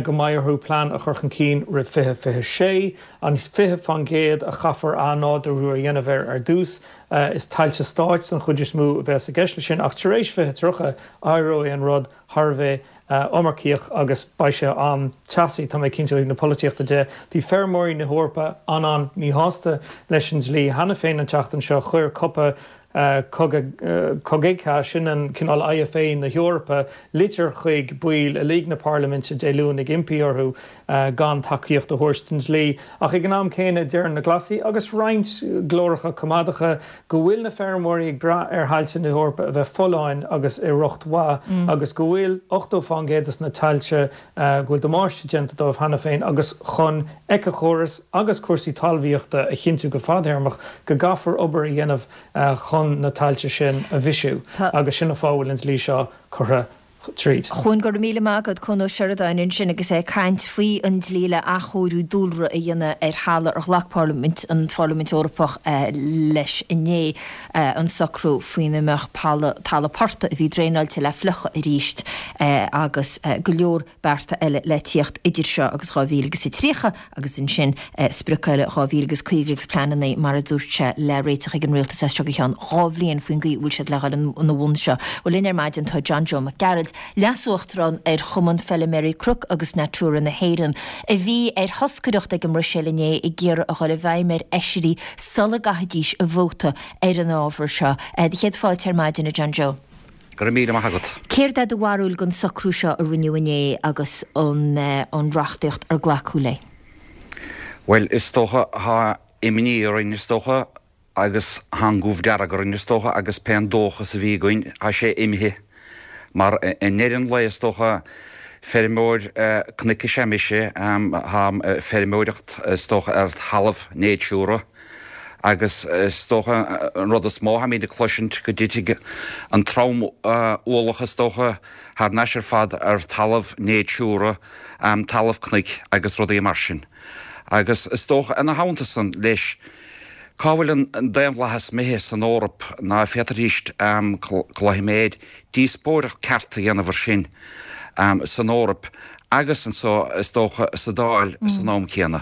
go mbeidh orthu plean a chur chun cinn roimh 2026. An 20% a chaithfear athnádúrú a dhéanamh air ar dtús, is tailte stáit den chuid is mó a bheas i gceist leis sin, ach tar éis 2030, éireoidh an rud thar a bheith iomarcaíoch agus beidh sé an-teasaí, tá mé cinnte, ó thaobh na polaitíochta de. Bhí feirmeoirí na hEorpa an-an-míshásta leis an dlí cheana féin an tseachtain seo. Chuir Copa Cogeca, sin an cineál IFA na hEorpa, litir chuig baill uilig na Parlaiminte Dé Luain ag impí orthu gan tacaíocht a thabhairt don dlí. Ach ag an am céanna, deireann na Glasaigh agus roinnt glóracha coimeádacha go bhfuil na feirmeoirí ag brath ar thailte na hEorpa a bheith folláin agus i riocht mhaith agus go bhfuil 80% de na tailte go bhfuil damáiste déanta dóibh cheana féin agus chun éiceachóras agus cúrsaí talmhaíochta a chinntiú go fadthéarmach go gcaithfear obair a dhéanamh chun na tailte sin a bhisiú agus sin an fáth a bhfuil an dlí seo curtha. tríd. A Chuain, go raibh míle maith agat, Cuan Ó Seireadáin ansin agus é ag caint faoi an dlí le athchóiriú dúlra a dhéanamh ar thalamh ar ghlac Parlaimint an Pharlaimint Eorpach leis inné, an socrú faoina mbeadh talamh portaigh a bhí draenáilte le fliuchadh arís agus go leor bearta eile le tíocht idir seo agus 2030 agus ansin sprioc eile 2050 agus pleananna, mar a dúirt sé, le réiteach ag an rialtas as seo go ceann 2 bhliain faoin gcaoi a bhfuil siad le dhul ina bhun seo. Bhuel, linn ar maidin tá John Joe Mac Gearailt, Leas-Uachtarán ar Chumann Feiliméaraí Cnoc agus Natura na hÉireann, a bhí ar thoscaireacht ag an mBruiséil inné ag iarraidh a dhul i bhfeidhm ar fheisirí sula gcaithfidís a vóta ar an ábhar seo. Do chéad fáilte ar maidin, a John Joe. Go raibh míle maith agat. Céard é do bharúil den socrú seo a rinneadh inné agus an reachtaíocht ar glacadh léi? Bhuel, is dócha, tá imní orainn, is dócha, agus tá an goimh dearg orainn, is dócha, agus pé an dóchas a bhí againn, tá sé imithe. Mar i ndeireadh an lae, is dócha, feirmeoir cnoic is ea mise, táim ag feirmeoireacht, is dócha, ar thalamh Natura. Agus is dócha an rud is mó atáimid ag cloisint go dtitfidh an trom-ualach is dócha thar n-ais ar fad ar talamh Natura, talamh cnoic agus rudaí mar sin. Agus is dócha ina theannta san leis, cá bhfuil an daonlathas imithe san Eoraip ná féadfaidís cloisim díospóireacht ceart a dhéanamh ar sin san Eoraip agus anso is dócha sa Dáil san am céanna.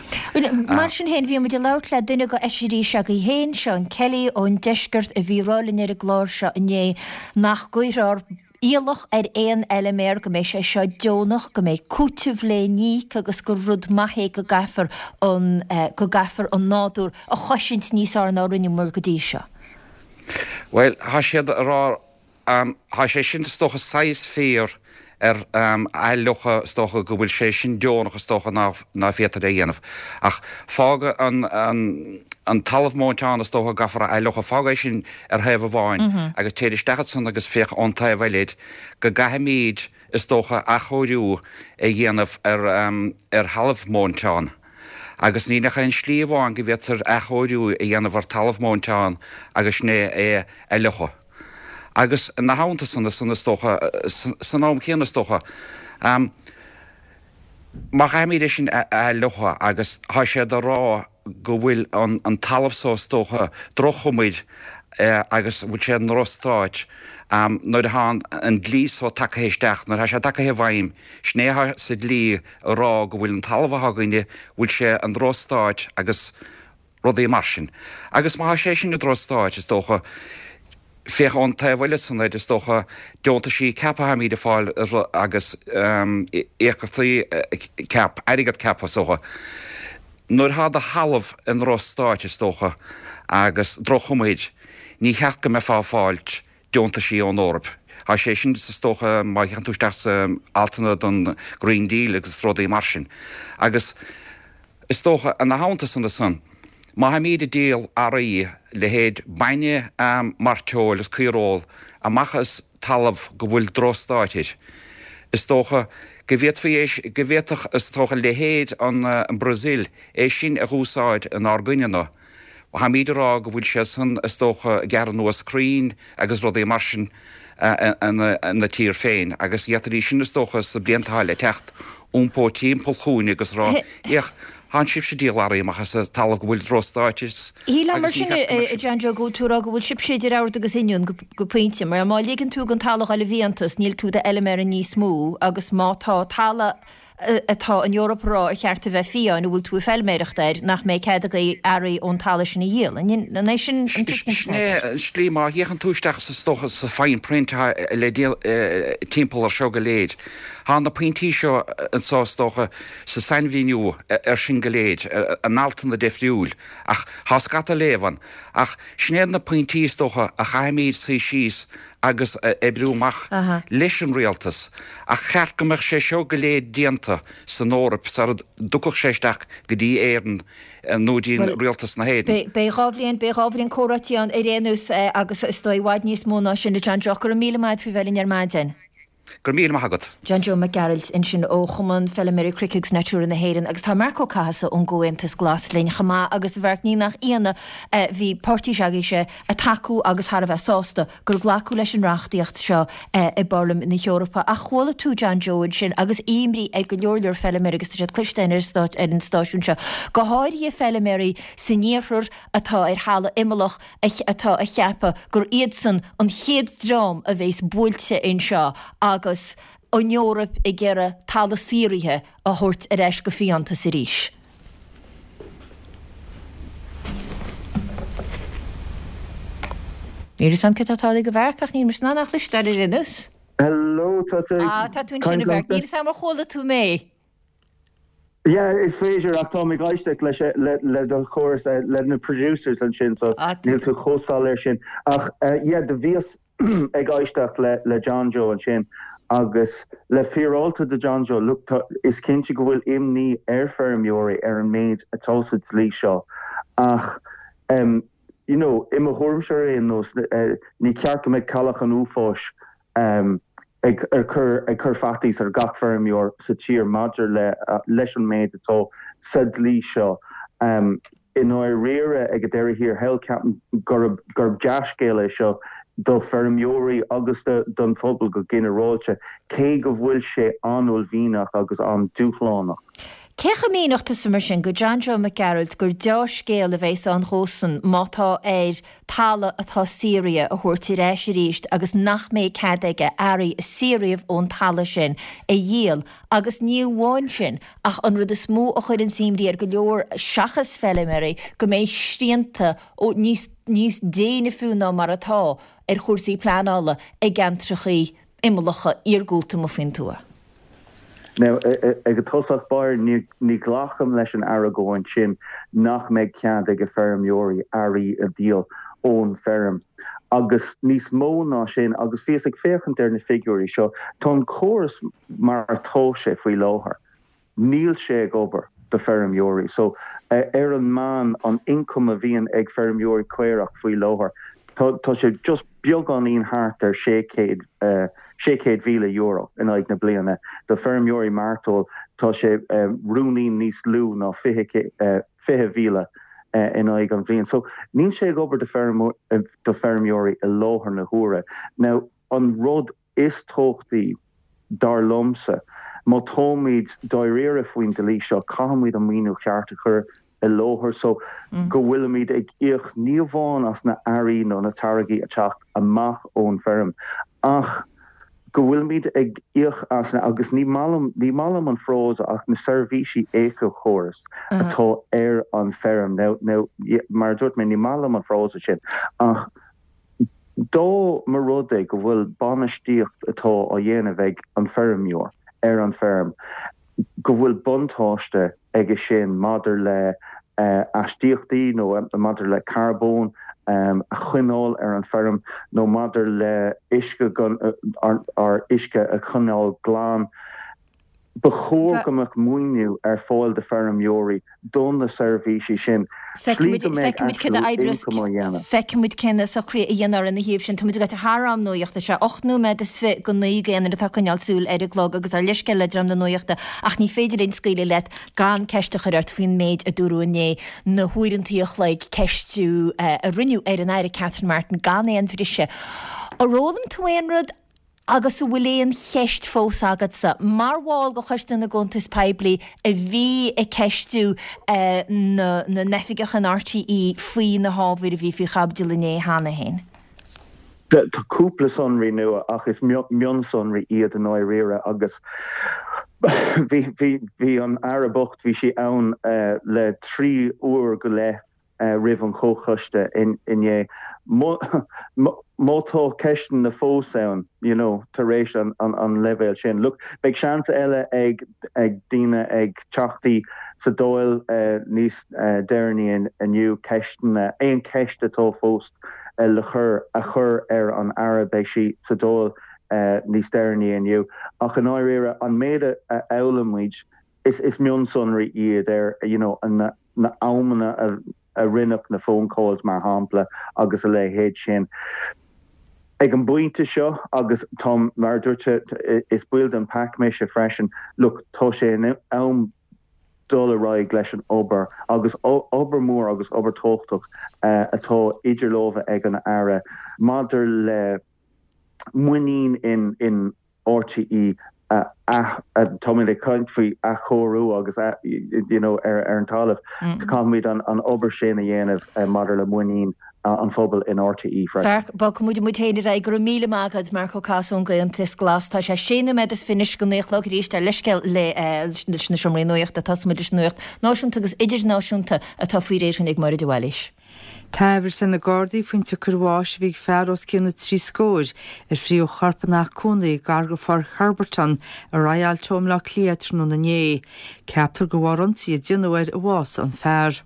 Mar sin féin, bhí muid ag labhairt le duine de fheisirí s'agaibh féin, Seán Kelly ón deisceart, a bhí ag rá linn ar an gclár seo inné nach gcuirfear iallach ar aon fheiliméar, go mbeidh sé seo deonach, go mbeidh cúiteamh le n-íoc agus gur rud maith é go gcaithfear an go gcaithfear an nádúr a chosaint níos fhearr ná rinneamar go dtí seo. Bhuel, tá siad ag rá Tá sé sin is dócha saghas fíor ar athfhliuchadh is dócha go bhfuil sé sin deonach is dócha ná féadtar é a dhéanamh. Ach fág an talamh móinteán is dócha go gcaithfear a athfhliuchadh, fág é sin ar thaobh amháin agus téir isteach ansan agus féach ón taobh eile de go gcaithfimíd is dócha athchóiriú a dhéanamh ar thalamh móinteán. Agus níl ach aon slí amháin go bhféadtar athchóiriú a dhéanamh ar talamh móinteán agus sin é é a fhliuchadh. Agus ina theannta san, san is dócha, san am céanna is dócha, má chaithfimid é sin a fhliuchadh agus tá siad ag rá go bhfuil an talamh so is dócha droch-chuma air agus bhfuil sé i ndrochstáit nuair atá an dlí so tagtha isteach, nuair atá sé tagtha i bhfeidhm, sin é atá sa dlí ag rá go bhfuil an talamh atá againne, bhfuil sé i ndrochstáit agus rudaí mar sin. Agus má tá sé sin i ndrochstáit, is dócha, féach ón taobh eile san air, is dócha, deontaisí CAP atáimid ag fáil agus íocaíochtaí CAP, airgead CAP is dócha. Nuair atá do thalamh i ndrochstáit, is dócha, agus droch-chuma air, ní cheart go mbeifeá ag fáilt deontaisí ón Eoraip. Tá sé sin, is dócha, má théann tú isteach sa altanna don Green Deal agus rudaí mar sin. Agus is dócha, ina theannta san ansan, má tháimíd ag díol earraí, leithéid bainne, mairteoil is caoireoil, amach as talamh go bhfuil drochstáit air, is dócha go bhféadfaí é, go bhféadfadh, is dócha, leithéid an Brazil é sin a dh'úsáid inár gcoinne-na. Táimíd ag rá go bhfuil sé san, is dócha, ag gearradh anuas crainn agus rudaí mar sin ina tír féin agus d'fhéadfaidís sin, is dócha, sna blianta atá le teacht, iompó timpeall chugainne agus rá, Féach, tánn sibhse ag díol earraí amach as talamh go bhfuil drochstáit is Shílfeá mar sin, a John Joe, go bhfuil tú ag rá go bhfuil sibhse idir ord agus oinniún go pointe, mar má ligeann tú don talamh a dhul i bhfiántas, níl tú i d'fheiliméara níos mó agus má tá talamh atá an Eoraip ag rá ar cheart a bheith fiáin, a bhfuil tú ag feilméireacht air, nach mbeidh cead agaibh earraí ón talamh sin a dhíol. An é sin an tuiscint Sin é an slí, má fhéachann tú isteach is dócha sa fine print atá le díol timpeall ar seo go léir, tá na pointí seo anseo is dócha sa sainmhíniú ar sin go léir, in altanna difriúil, ach tá scata léamh ann. Ach sin iad na pointí is dócha a chaithfimid suí síos agus a oibriú amach leis an rialtas, ach cheart go mbeadh sé seo go léir déanta san Eoraip sara dtiocfadh sé isteach go dtí Éirinn nó dtí rialtas na hÉireann. Beidh 2 bhliain, beidh 2 bhliain comhráití ann ar aon nós agus is dóigh i bhfad níos mó ná sin, a John Joe. Go raibh míle maith agat faoi bheith linn ar maidin. Go raibh míle maith agat. John Joe Mac Gearailt ansin ó Chumann Feilméaraí Cnoic agus Natura na hÉireann agus tá Marc Ó Cathasaigh ón gComhaontas Glas linn chomh maith agus a Mhairc ní nach ionadh bhí páirtí s'agaibhse ag tacú agus thar a bheith sásta gur glacadh leis an reachtaíocht seo i bParlaimint na hEorpa. Ach chuala tú John Joe ansin agus imní ar go leor leor feilméaraí agus tá siad cloiste ar an stáisiún seo, go háirithe feilméaraí san iarthar atá ar thalamh imeallach atá a cheapadh gur iadsan an chéad dream a bheas buailte anseo agus an Eoraip ag iarraidh talamh saothraithe a thabhairt ar ais go fiántas arís. Níl a fhios agam céard atá tarlaithe do Mharc ach níl mise in ann é a chloisteáil ar aon nós. Hello, tá tú ag Ah, tá tú ansin a caint Mharc. liomsa? Níl a fhios agam ar chuala tú mé. Yeah, is féidir ach táim ag éisteacht leis le le do chóras le na producers ansin so Ah, níl tú chomh soiléir sin. Ach yeah, do bhíos ag éisteacht le le John Joe ansin agus le fíreáilte do John Joe, look, tá, is cinnte go bhfuil imní ar feirmeoirí ar an méid atá sa dlí seo ach em you know, i mo thuairimse ar aon nós, ní ceart go mbeadh cailleach an uafáis em ag cur ag cur faitíos ar gach feirmeoir sa tír maidir le leis an méid atá sa dlí seo. I ndáiríre, ag an deireadh thiar thall, ceapaim gurb gurb dea-scéal é seo do feirmeoirí agus do don phobal go ginearálta, cé go bhfuil sé an-uaillmhianach agus an-dúshlánach. Cé chomh míneodh tusa mar sin go John Joe Mac Gearailt gur deá-scéal a bheas ann dhósan má tá air talamh atá saothraithe a thabhairt ar ais arís agus nach mbeidh cead aige earraí a saothraíodh ón talamh sin a dhíol agus ní amháin sin ach an rud is mó a chuireanns imní ar go leor seachas feilméaraí go mbeidh srianta níos níos déine fiú ná mar atá ar chúrsaí pleanála i gceantrachaí imeallacha iargúlta amuigh faoin tuath. Now, ag an tosach báire, ní ghlacaim leis an argóint sin nach mbeidh cead ag feirmeoirí earraí a dhíol ón bhfeirm. Agus níos mó ná sin, agus bhíos ag féachaint ar na figiúirí seo, tá an córas mar atá sé faoi láthair, níl sé ag obair do feirmeoirí. So, ar an meán, an ioncam a bhíonn ag feirmeoirí caorach faoi láthair, tá sé just beagáinín thart ar €600,000 in aghaidh na bliana. Do feirmeoirí mairteoil tá sé ruainnín níos lú ná 20,000 in aghaidh an bhliain. So níl sé ag obair do feirmeoirí i láthair na huaire. Now an rud is tábhachtaí, dar liomsa, má táimid dáiríre faoin dlí seo, caithfimid an maoiniú ceart a chur i láthair so go bhfuilimid ag íoc ní amháin as na earraí nó na táirgí ag teacht amach ón bhfeirm ach go bhfuilimid ag íoc as na, agus ní maith liom, ní maith liom an frása ach na seirbhísí éiceachórais atá ar an bhfeirm. Now, now, mar a dúirt mé, ní maith liom an frása sin ach Dá mba rud é go bhfuil bainistíocht atá á dhéanamh ag an feirmeoir ar an bhfeirm, go bhfuil buntáiste aige sin maidir le aistíochtaí nó maidir le carbón a choinneáil ar an bhfeirm nó maidir le uisce, ár uisce a choinneáil glan, Ba chóir go mbeadh maoiniú ar fáil do feirmeoirí do na seirbhísí sin, slí go mbeidh actual income á dhéanamh. Feicfimid cé na socruithe a dhéanfar ina thaobh sin. Táimid ag dul thar am nuachta. Sé 8 nóiméad is fi go 9 d'aon duine atá ag coinneáil súil ar an gclog agus ár leithscéal le dream na nuachta ach ní féidir linn scaoileadh leat gan ceist a chur ort faoin méid a dúradh inné, na huaireantaí a chloig ceistiú a rinneadh ar an Aire Catherine Martin gan aon bhriseadh. Ar fhoghlaim tú aon rud? Agus an bhfuil aon cheist fós agatsa, mar bhall de Choiste na gCuntas Poiblí a bhí ag ceistiú na n-oifigeach in RTÉ faoi na hábhair a bhí faoi chaibidil inné cheana féin? Tá cúpla sonraí nua ach is mionsonraí iad i ndáiríre agus bhí an Aire bocht, bhí sí ann le 3 uair go leith roimh an chomhchoiste inné. Má tá ceisteanna fós ann, you know, tar éis an leibhéal sin, look, beidh seans eile ag daoine, ag teachtaí sa Dáil níos deireanaí inniu ceisteanna, aon cheist atá fós le cur, a chur ar an Aire, beidh sí sa Dáil níos deireanaí inniu. Ach i ndáiríre, an méid a fhoghlaim muid, is mionsonraí iad ar, you know, na amanna a rinneadh na phone calls mar shampla agus a leithéid sin. Ag an bpointe seo, agus táim, mar a dúirt tú, is baill den pac mise freisin, look, tá sé in am dul ar aghaidh leis an obair agus obair mhór agus obair tábhachtach atá idir lámha ag an Aire maidir le muinín in RTÉ a táimid ag caint faoi athchóiriú agus you know ar an talamh. Caithfimid an obair sin a dhéanamh maidir le muinín an phobail in RTÉ freisin. Mharc, bogfaidh muid muid féin ar aghaidh. Go raibh míle maith agat, Marc Ó Casaide ón gComhaontas Glas. Tá sé sé nóiméad is fiche anois go naoi a chlog arís. Tá leithscéal le leis na seomraí nuachta. Tosóidh muid leis an nuacht náisiúnta agus idirnáisiúnta atá faoi réir againn ag Máire de Bhailís. Tá amhras ar na Gardaí faoin tsiocair bháis a bhí ag fear os cionn na dtrí scóir ar fríothadh a chorp ina theach cónaí gar go Pháirc Herberton i Royal Teo i mBleá Cliath tráthnóna inné. Ceaptar gur bharr ionsaí a déanadh air a bhásaigh an fear.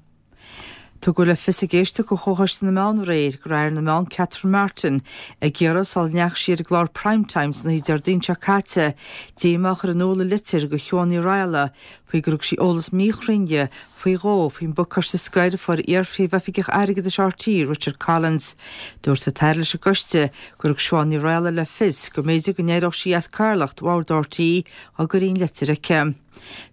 Tugadh le fios ag éisteacht de Chomhchoiste na Meán aréir go raibh Aire na Meán Catherine Martin ag iarraidh sula ndeachaigh sí ar an gclár Prime Time san oíche Déardaoin seo caite díomá a chur in iúl i litir do Shiobhán Ní Raghallaigh faoi gur thug sí eolas míchruinn di faoi dhó faoin bpacáiste scoir a fuair iar-phríomhoifigeach airgeadais RTÉ, Richard Collins. Dúirt an tAire leis an gcoiste gur thug Siobhán Ní Raghallaigh le fios go mb'fhéidir go n-éireodh sí as cathaoirleacht bhord RTÉ dá gcuirfí an litir aici.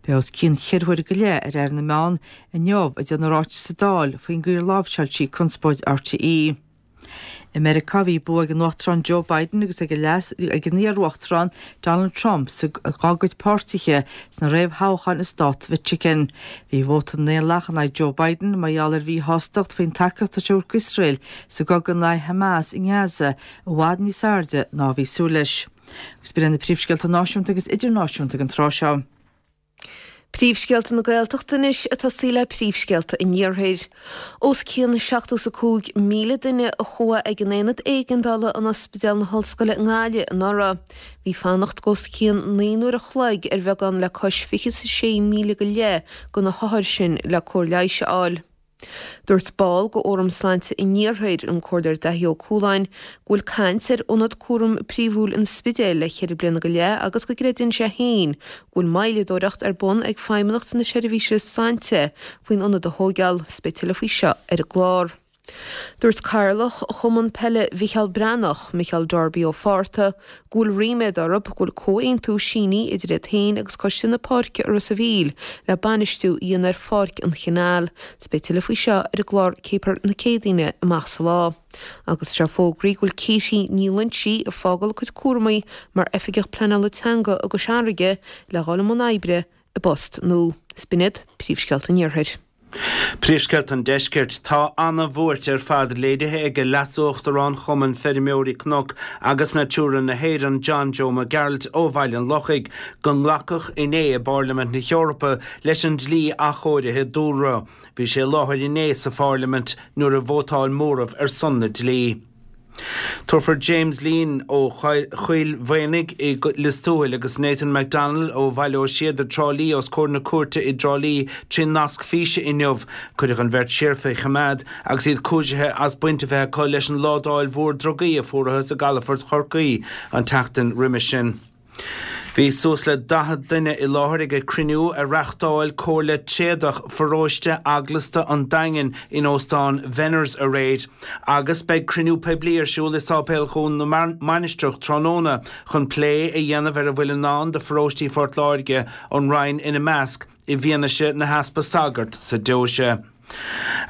Beidh os cionn cheithre huaire go leith ar Aire na Meán inniu ag déanamh ráiteas sa Dáil faoin gcaoi ar láimhseáil sí conspóid RTÉ. I Meiriceá bhí bua ag an Uachtarán Joe Biden agus ag an iar-uachtarán Donald Trump dá gcuid páirtithe sna réamhthoghcháin i stát Mhichigan. Bhí vóta na nDaonlathach in aghaidh Joe Biden mar gheall ar mhíshástacht faoin tacaíocht atá sé a thabhairt d'Iosrael sa gcogadh in aghaidh Hamas i nGaza i bhfad níos airde ná a bhí súil leis. Agus b'in iad na príomhscéalta náisiúnta agus idirnáisiúnta ag an tráth seo. Príomhscéalta na Gaeltachta anois ag tosaí le príomhscéalta an Iarthair. Os cionn 75,000 duine a chuaigh ag an Aonad Éigeandála in Ospidéal na hOllscoile i nGaillimh anuraidh. Bhí fanacht os cionn 9 n-uair a chloig ar bheagán le cois 26,000 go leith de na hothair sin le cóir leighis a fháil. Dúirt ball de Fhóram Sláinte an Iarthair, an Comhairleoir Daithí Ó Cualáin, go bhfuil caint ar ionad cúraim príomhúil an Spidéil le ceithre bliana go leith agus go gcreideann sé féin go bhfuil moilleadóireacht ar bun ag Feidhmeannacht na Seirbhíse Sláinte faoin ionad a thóigeáil. Beidh tuilleadh faoi seo ar an gclár. Dúirt Cathaoirleach Chumann Peile Mhicheál Breathnach, Micheál Darby Ó Fátharta, go bhfuil ríméad orthu go bhfuil comhaontú sínithe idir iad féin agus Coiste na Páirce i Ros a' Mhíl le bainistiú a dhéanamh ar Pháirc an Chanáil. 'S beidh tuilleadh faoi seo ar an gclár Céipear na Céadaoine amach sa lá. Agus tá fógraithe go bhfuil Katie Ní Loinsigh ag fágáil a cuid cúramaí mar Oifigeach Pleanála Teanga i gCois Fharraige le dhul i mbun oibre i bpost nua. 'S b'in iad príomhscéalta an Iarthair. Príomhscéalta an Deiscirt. Tá ana-bhuairt ar fad léirithe ag Leas-Uachtarán Chumann Feirmeoirí Cnoc agus Natura na hÉireann, John Joe Mac Gearailt ó Bhaile an Lochaigh, go nglacadh inné i bPairlimint na hEorpa leis an dlí athchóirithe dúlra. Bhí sé i láthair inné sa Phairlimint nuair a vótáil móramh ar son na dlí. Tabharfar James Leen ó Choill Mhaonaigh i Lios Tuathail agus Nathan McDonnell ó Bhaile Ó Síoda, Trá Lí os comhair na cúirte i dTrá Lí trí nasc físe inniu. Cuireadh an bheirt siar faoi choimeád agus iad cúisithe as baint a bheith acu leis an ládáil mhór drugaí a fuarathas i gcalafort Chorcaí an tseachtain roimis sin. Bhí suas le 40 duine i láthair ag cruinniú a reáchtáil Comhairle Tréadach Pharóiste Eaglasta an Daingin in Óstán Venners aréir agus beidh cruinniú poiblí ar siúl i Sáipéal Dhún na Mainistreach tráthnóna chun plé a dhéanamh ar a bhfuil i ndán do pharóistí Phort Láirge, an Rinn ina measc. i bhfianaise na heaspa sagart sa deoise.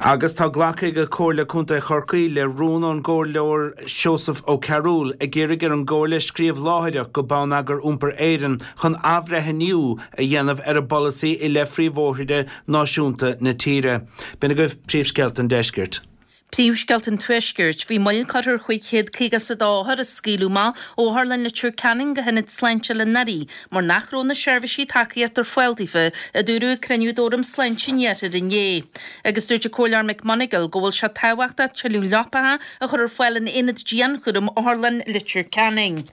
Agus tá glactha ag Comhairle Contae Chorcaí le rún ón gComhairleoir Seosamh Ó Cearúil ag iarraidh ar an gComhairle scríobh láithreach go Bonneagar Iompair Éireann chun athbhreithniú a dhéanamh ar a bpolasaí i leith phríomhbhóithre náisiúnta na tíre. B'in agaibh príomhscéalta an deiscirt. Príomhscéalta an Tuaiscirt. Bhí moill curtha ar 552 othar a scaoileadh amach ó Otharlann Leitir Ceanainn go hIonad Sláinte Oileán Thoraí mar nach raibh na seirbhísí tacaíochta ar fáil daofa, a dúradh ag cruinniú d'Fhóram Sláinte an Iarthair inné. Agus dúirt an Comhairleoir McMonagail go bhfuil sé tábhachtach tuilleadh leapacha a chur ar fáil in Aonad Dianchúraim Otharlann Leitir Ceanainn.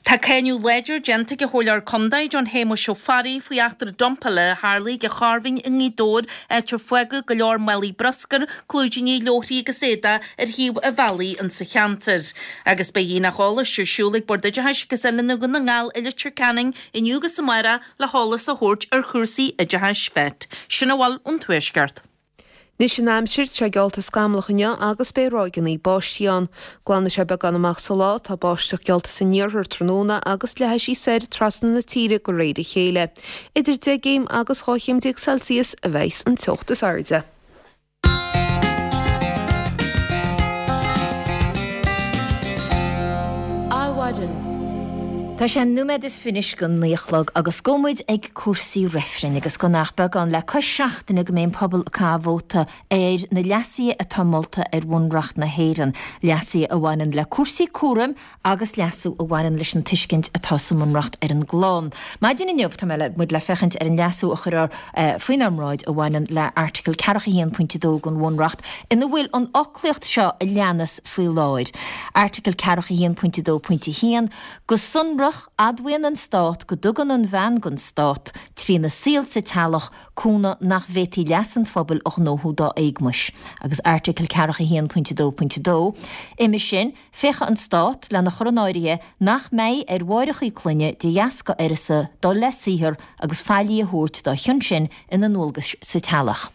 Tá cáineadh láidir déanta ag an Chomhairleoir Contae, John Shéamuis Ó Fearraigh, faoi eachtra dumpála a tharlaigh ag an Charbhinn i nGaoth Dobhair, áit ar fágadh go leor málaí bruscair, clúidíní, leabharthaí agus éadaigh ar thaobh an bhealaigh insa cheantar. Agus beidh aonach eolais ar siúl ag Bord Oideachais agus Oiliúna Dhún na nGall i Leitir Ceanainn inniu agus amárach le heolas a thabhairt ar chúrsaí oideachais FET. Sin a bhfuil ón Tuaisceart. Anois an aimsir, tá sé geallta scamallach inniu agus beidh ráigeanna báistí ann. Glanfaidh sé beagán amach sa lá, tá báisteach geallta san iarthar tráthnóna agus leathfaidh sí soir trasna na tíre de réir a chéile. Idir 10 gcéim agus 12 chéim Celsius a bheidhs an teocht is airde. Adhmhaidin. Tá sé nóiméad is fiche go naoi a chlog agus gabhfaidh muid ag cúrsaí reifrinn agus gan ach beagán le cois seachtaine go mbeidh an pobal ag caitheamh vóta ar na leasuithe atá molta ar Bhunreacht na hÉireann, leasuithe a bhaineann le cúrsaí cúraim agus leasú a bhaineann leis an tuiscint atá sa mBunreacht ar an gclann. Maidin inniu tá mé muid le féachaint ar an leasú a chuirfear faoinár mbráid a bhaineann le Airteagal 41 pointe 2 den Bhunreacht ina bhfuil an fhoclaíocht seo a leanas faoi láthair. Airteagal 41 pointe 2 pointe 1, Go sonrach, admhaíonn an Stát go dtugann an bhean don Stát, trína saol sa teaghlach, cúnamh nach bhféadfaí leas an phobail a ghnóthú dá éagmais. Agus Airteagal 41 pointe 2 pointe 2, Uime sin, féachfaidh an Stát lena chur in áirithe nach mbeidh ar mháithreacha clainne de dheasca uireasa dul le saothar agus faillí a thabhairt dá chionn sin ina ndualgais sa teaghlach.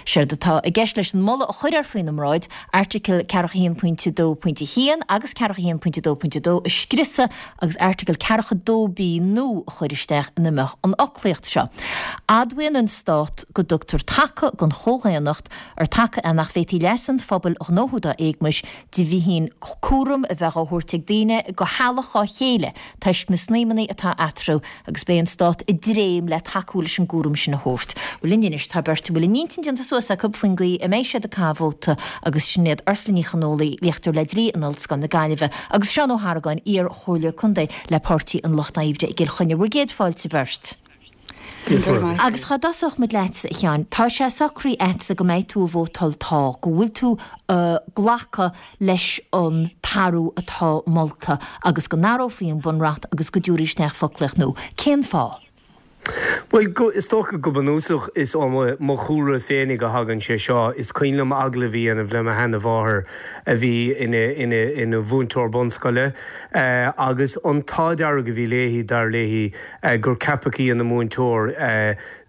Séard atá i gceist leis an moladh a chuirfear faoina mbráid, Airteagal 41 pointe 2 pointe 1 agus 41 pointe 2 pointe 2 a scriosadh agus Airteagal 42 B nua a chur isteach ina mbeadh an fhoclaíocht seo, Admhaíonn an Stát go dtugtar taca don chomhdhaonnacht, ar taca é nach bhféadfaí leas an phobail a ghnóthú dá éagmais, de bhíthin cúram a bheith á thabhairt ag daoine go theaghlach dhá chéile toisc na snaidhmeanna atá eatarthu agus beidh an Stát i dtréim le tacú leis an gcúram sin a thabhairt. Bhuel linn anois tá beirt a bhfuil a n-intinn déanta suas acu faoin gcaoi a mbeidh siad ag caitheamh vóta agus sin iad Ursula Ní Chonfhaola, léachtóir le Dlí in Ollscoil na Gaillimhe agus Seán Ó hArgáin, iar-chomhairleoir contae le Páirtí an Lucht Oibre i gCill Chainnigh. Bhur gcéad fáilte beirt. Agus cá dtosódh muid leatsa, a Sheáin? Tá sé socraithe agatsa go mbeidh tú ag vótáil tá, go bhfuil tú ag glacadh leis an t-athrú atá molta agus go n-athrófaí an Bunreacht agus go dtabharfaí isteach foclaíocht nua. Cén fáth? Bhuel, is dócha go bunúsach is ó mo chúlra féinig a thagann sé seo. Is cuimhin liom agallamh a dhéanamh le mo sheana-mháthair a bhí ina mhúinteoir bunscoile agus an t-ádh dearg a bhí léi, dar léi, gur ceapadh í ina múinteoir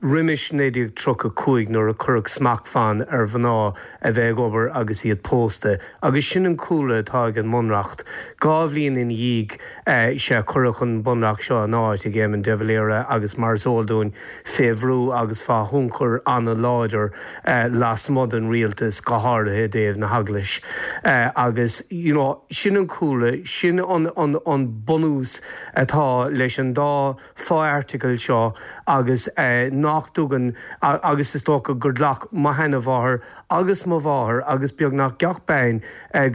roimis 1935 nuair a cuireadh smachtbhann ar mhná a bheith ag obair agus iad pósta. Agus sin an cúlra atá ag an mBunreacht. Dhá bhliain ina dhiaidh sea cuireadh an Bunreacht seo in áit ag Éamon de Valera agus mar is eol dúinn fé bhrú agus fá thionchar an-láidir lasmuigh den rialtas, go háirithe i dtaobh na hEaglais. Agus you know sin an cúlra, sin an an bunús atá leis an dá fho-airteagal seo agus nach dtugann, agus is dócha gur ghlac mo sheana-mháthair agus mo mháthair agus beagnach gach bean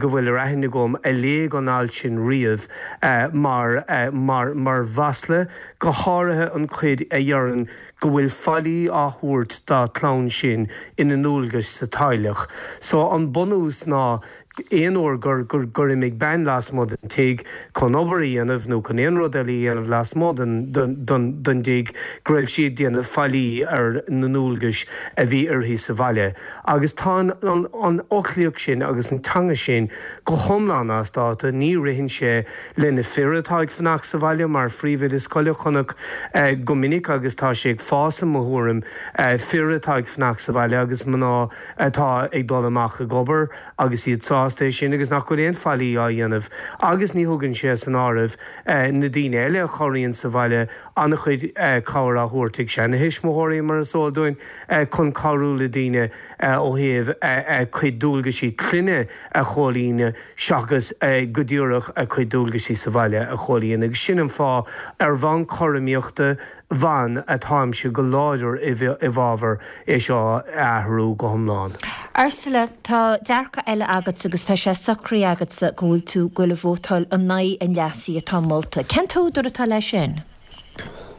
go bhfuil ar aithne agam a léigh an alt sin riamh mar, mar, mar mhasla, go háirithe an chuid a dheireann go bhfuil faillí á thabhairt dá clann sin ina ndualgais sa teaghlach. So an bunús ná aon uair gur, gur, gur imigh bean lasmuigh den tigh chun obair a dhéanamh nó chun aon rud eile a dhéanamh lasmuigh den, den, den, den dtigh, go raibh sí ag déanamh faillí ar na ndualgais a bhí uirthi sa bhaile. Agus tá an, an, an fhoclaíocht sin agus an teanga sin go hiomlán as dáta, ní ritheann sé le na fir atá ag fanacht sa bhaile mar phríomhoide scoile, chonac go minic agus tá sé ag fás i mo thuairim, fir atá ag fanacht sa bhaile agus mná atá ag dul amach ag obair agus iad sásta é sin agus nach bhfuil aon faillí á dhéanamh agus ní thugann sé san áireamh na daoine eile a chabhraíonn sa bhaile, an-chuid cabhair á thabhairt ag seana-thuismitheoirí mar is eol dúinn chun cabhrú le daoine ó thaobh a cuid dualgaisí clainne a chomhlíonadh seachas go díreach a cuid dualgaisí sa bhaile a chomhlíonadh agus sin an fáth ar bhonn cothromaíochta ban atáimse go láidir i bhfabhar é seo a athrú go hiomlán. Ursula, tá dearcadh eile agatsa agus tá sé socraithe agatsa go bhfuil tú ag goil a vótáil in aghaidh an leasaithe atá molta. Cén t-údar atá leis sin?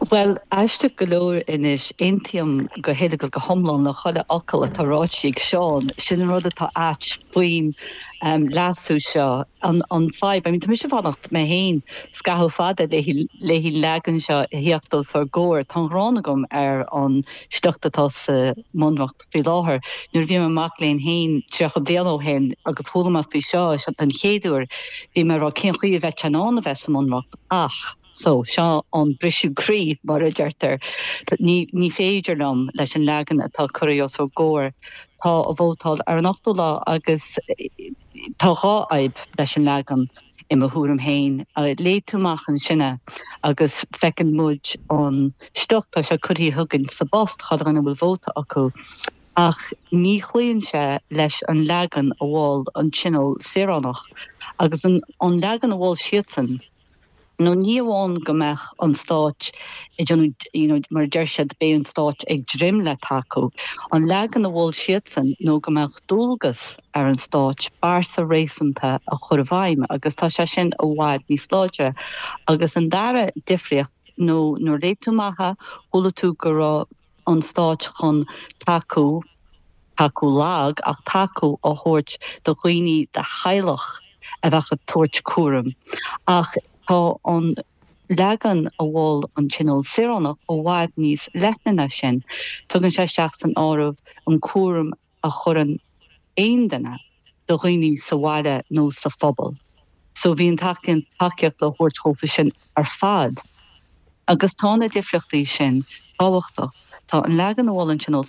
Bhuel, aisteach go leor anois, aontaím go huile agus go hiomlán le chuile fhocal atá ráite ag Seán. Sin an rud atá ait faoin leasú seo. An fadhb, I mean, tá mise ag fanacht mé féin scaitheamh fada léi an leagan seo a theacht os ár gcomhair. Tá an ghráin agam ar an sliocht atá sa mBunreacht faoi láthair. Nuair a bhí mé i mo mhac léinn féin 30 bliain ó shin agus chuala mé faoi seo den chéad uair, bhí mé ag rá cén chaoi a bheadh sé in ann a bheith sa mBunreacht ach. So, seo an briseadh croí, mar a deirtear. Ní, ní féidir liom leis an leagan atá curtha os ár gcomhair. Tá a vótáil ar an ochtú lá agus tá dhá fhadhb leis an leagan, i mo thuairim féin. Léigh tú amach ansin é agus feiceann muid an sliocht, tá sé curtha chugainn sa bpost, chuile dhuine a bhfuil vóta acu. Ach ní chloíonn sé leis an leagan a mhol an Tionól Saoránach. Agus an leagan a mhol siadsan, nó ní amháin go mbeadh an Stát ag déanamh, you know, mar a deir siad, beidh an Stát ag dréim le tacú. An leagan a mhol siadsan nó go mbeadh dualgas ar an Stát bearta réasúnta a chur i bhfeidhm agus tá sé sin i bhfad níos láidre. Agus an dara difríocht nó nuair a léigh tú amach é, chuala tú go raibh an Stáit chun tacú, tacú lag, ach tacú a thabhairt do dhaoine de theaghlach a bheadh ag tabhairt cúraim. Ach tá an leagan a mhol an Tionól Saoránach i bhfad níos leithne ná sin. Tugann sé isteach san áireamh an cúram a chuireann aon duine do dhaoine sa bhaile nó sa phobal. So bhí an tacaíocht le thabhairt dhófa sin ar fad. Agus tá na difríochtaí sin tábhachtach. Tá an leagan a mhol an Tionól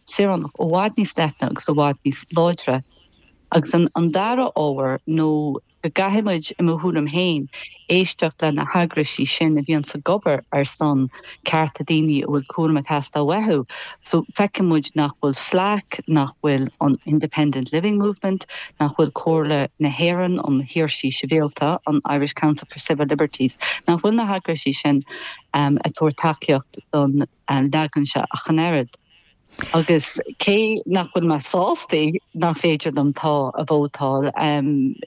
Saoránach i bhfad níos leithne agus i bhfad níos láidre. Agus an dara ábhar nó go gcaithfidh muid, i mo thuairim féin, éisteacht le na heagraisí sin a bhíonns ag obair ar son cearta daoine a bhfuil cúram ag teastáil uathu. So, feiceann muid nach bhfuil FLAC, nach bhfuil an Independent Living Movement, nach bhfuil Comhairle na hÉireann um Shaoirsí Sibhialta, an Irish Council for Civil Liberties, nach bhfuil na heagraisí sin ag tabhairt tacaíocht don leagan seo ach an oiread. Agus cé nach bhfuil mé sásta nach féidir liom tá a vótáil,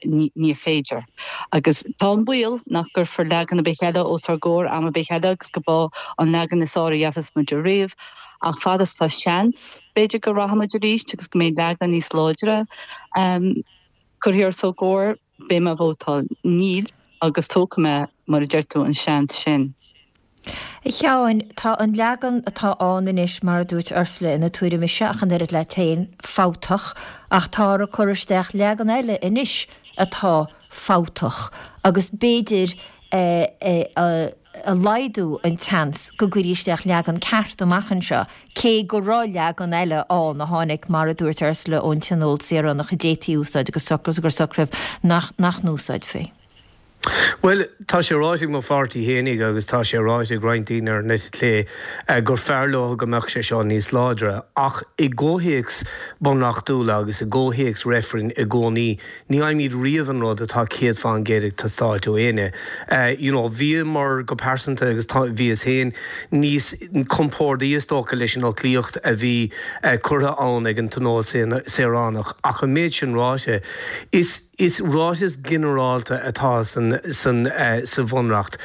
ní féidir. Agus tá an baol nach gcuirfear leagan ar bith eile os ár gcomhair am ar bith eile agus go b'é an leagan is fearr a gheobhas muid ariamh. Ach fad is tá seans, b'fhéidir go rachaidh muid arís agus go mbeidh leagan níos láidre curtha os ár gcomhair. Beidh mé ag vótáil níl agus tógfaidh mé, mar a deir tú, an seans sin. A Sheáin, tá an leagan atá ann anois, mar a dúirt Ursula ina tuairim-ise ach an oiread leat féin, fabhtach, ach táthar ag cur isteach leagan eile anois atá fabhtach agus b'fhéidir a laghdú an tseans go gcuirfí isteach leagan ceart amach anseo, cé go raibh leagan eile ann a tháinig, mar a dúirt Ursula, ón Tionól Saoránach a d'fhéadfaí a úsáid agus gur socraíodh nach n-úsáidfí. Bhuel, tá sé ráite ag mo pháirtí fhéinig agus tá sé ráite ag roinnt daoine ar an eite chlé gur fearr leo go mbeadh sé seo níos láidre. Ach i gcomhthéacs bunreachtúla agus i gcomhthéacs reifrinn i gcónaí, ní fhaighimid riamh an rud atá 100% ag teastáilt ó éinne. You know, bhíomar go pearsanta agus tá, bhíos féin níos compórdaí is dócha leis an fhoclaíocht a bhí curtha ann ag an Tionól Saoránach. Ach an méid sin ráite, is. Is ráiteas ginearálta atá sa Bhunreacht.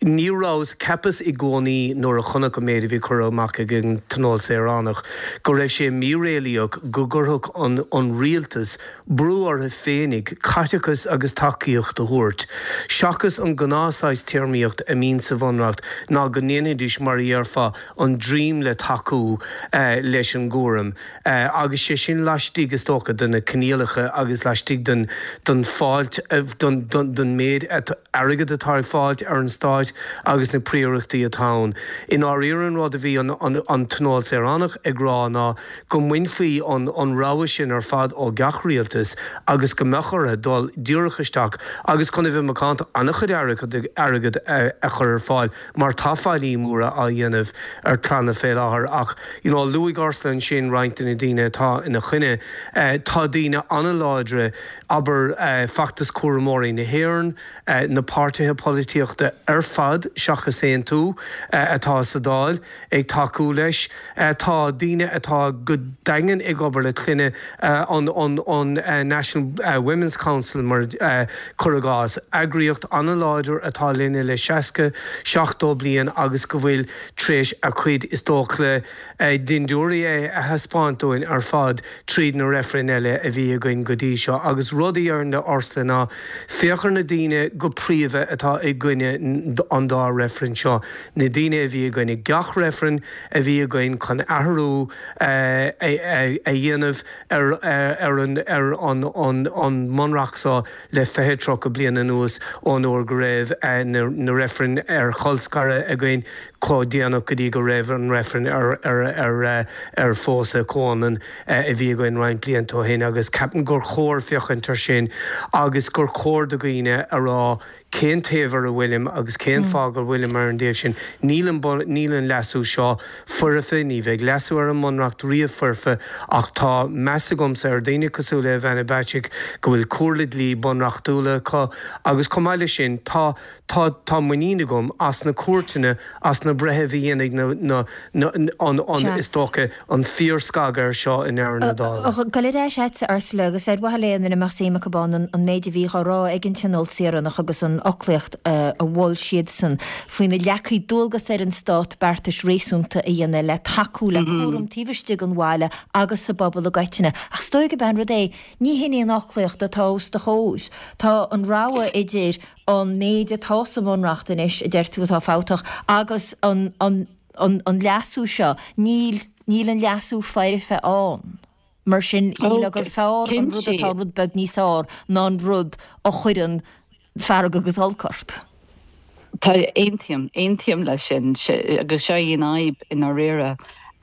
Ní rabhas, cheapas i gcónaí nuair a chonac an méid a bhí curtha amach ag an Tionól Saoránach go raibh sé míréalaíoch go gcuirfeadh an rialtas brú orthu féinig caiteachas agus tacaíocht a thabhairt, seachas an gnáth saghas téarmaíocht a mbíonn sa Bhunreacht ná go ndéanfaidís mar a dhéarfá an dream le tacú leis an gcúram. Agus sé sin laistigh, is dócha, de na coinníollacha agus laistigh den den fáilt, den den méid airgid atá ag fáilt ar an Stáit agus na príorachtaí atá ann. I ndáiríre an rud a bhí an an Tionól Saoránach ag rá ná go mbainfí an an rogha sin ar fad ó gach rialtas agus go mbeadh orthu dul díreach isteach agus chun a bheith macánta an-chuid airgid a chur ar fáil mar tá faillí móra á dhéanamh ar clanna fé láthair ach you know luaigh Ursula ansin roinnt de na daoine atá ina choinne. Tá daoine an-láidre, abair Feachtas Cúramóirí na hÉireann, na páirtithe polaitíochta ar fad seachas Aontú atá sa Dáil ag tacú leis. Tá daoine atá go daingean ag obair le clainne, an National Women's Council mar cuir i gcás, eagraíocht an-láidir atá linne le 60, 70 bliain agus go bhfuil tar éis a cuid is dócha dindiúirí a thaispeáint dúinn ar fad tríd na reifrinn eile a bhí againn go dtí seo. Agus rud a déarfainn le Ursula ná féach ar na daoine go príomha atá i gcoinne. an dá reifreann seo, na daoine a bhí i gcoinne gach reifreann a bhí againn chun athrú a dhéanamh ar an ar an an mBunreacht seo le 20, 30 bliain anuas ón uair go raibh na reifrinn ar cholscaradh againn chomh déanach go dtí go raibh an reifreann ar ar ar phósadh comhionann a bhí againn roinnt blianta ó shin agus ceapaim gur chóir féachaint ar sin agus gur chóir do dhaoine a rá cén taobh ar a bhfuilim agus cén fáth go bhfuilim ar an dtaobh sin. Níl an níl an leasú seo foirfe, ní bheidh leasú ar an mBunreacht riamh foirfe ach tá meas agamsa ar dhaoine cosúil le Ivana Bacik go bhfuil comhairle dlí bunreachtúla acu agus chomh maith leis sin tá tá tá muinín agam as na cúirteanna, as na breithimh a dhéanfaidh na na na an an is dócha an fíorscagadh air seo i ndeireadh na dála. Gabháil ar ais agatsa, Ursula, agus ar mhaithe le ina mbeadh suim acu ann an méid a bhí á rá ag an Tionól Saoránach agus an fhoclaíocht a mhol siadsan faoina leagfaí dualgas ar an Stát beartais réasúnta a dhéanamh le tacú le cúram taobh istigh den bhaile agus sa bpobal i gcoitinne. Ach is dóigh gurb é an rud é, ní hin í an fhoclaíocht atá os do chomhair. Tá an rogha idir an méid atá sa mBunreacht anois, a deir tú atá fabhtach, agus an an leasú seo, níl, níl an leasú foirfe ann. Mar sin, shílfeá gur fearr an rud atá rud beag níos fearr ná an rud a chuireann fearg agus olc ort. Tá, aontaím, aontaím leis sin, agus seo í an fhadhb i ndáiríre,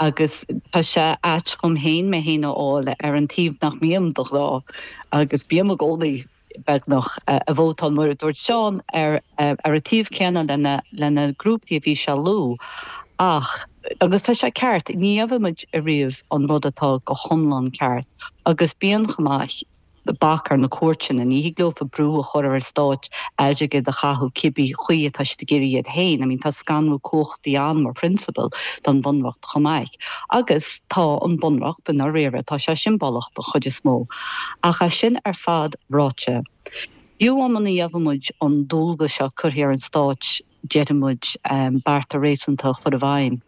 agus tá sé ait dhom féin mé féin a fháil ar an taobh nach mbím de ghnáth, agus bím i gcónaí beagnach, ag vótáil, mar a dúirt Seán, ar ar an taobh céanna lena grúpaí a bhí sé a lua. Ach, agus tá sé ceart, ní gheobhaidh muid ariamh an rud atá go hiomlán ceart. Agus bíonn chomh maith bac ar na cúirteanna, ní thig leofa brú a chur ar an stáit airgead a chaitheamh cibé chaoi atá siad ag iarraidh iad féin. I mean, tá scanrú cumhachtaí ann mar phrionsabal don Bhunreacht chomh maith. Agus tá an Bunreacht, i ndáiríre, tá sé siombalach don chuid is mó. Ach é sin ar fad ráite, fiú amháin muna gheobhaidh muid an dualgas seo curtha ar an Stáit, déarfaidh muid, bearta réasúnta a chur i bhfeidhm,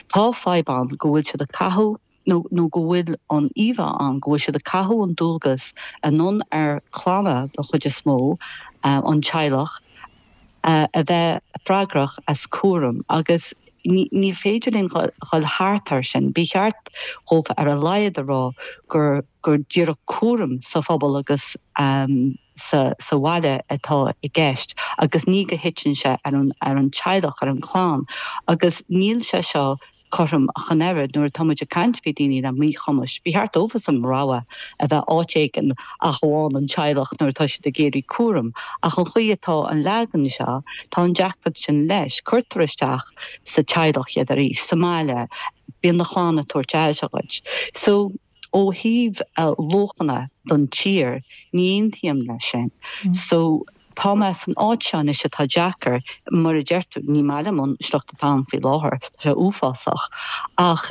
tá fadhb ann go bhfuil siad ag caitheamh, nó nó go bhfuil an íomhá ann go bhfuil siad ag caitheamh an dualgas anonn ar chlanna den chuid is mó, an teaghlach, a bheith freagrach as cúram agus ní féidir linn dhul thart air sin. Ba cheart dhófa ar a laghad a rá gur gur díreach cúram sa phobal agus sa sa bhaile atá i gceist agus ní go thiteann sé ar an ar an teaghlach, ar an chlann agus níl sé seo cothrom ach an oiread. Nuair atá muid ag caint faoi daoine le míchumais, ba cheart dóibhsean rogha a bheith áit éigin ach amháin an teaghlach nuair atá siad ag iarraidh cúram. Ach an chaoi atá an leagan seo, tá an deacracht sin leis. Cuirtear isteach sa teaghlach iad arís, sa mbaile, bíonn do chlann ag tabhairt aire dhuit. So. Ó thaobh luachanna don tír, ní aontaím leis sin. So, tá mé san áit seo anois atá deacair, mar a deir tú, ní maith liom an sliocht atá ann faoi láthair, tá sé uafásach, ach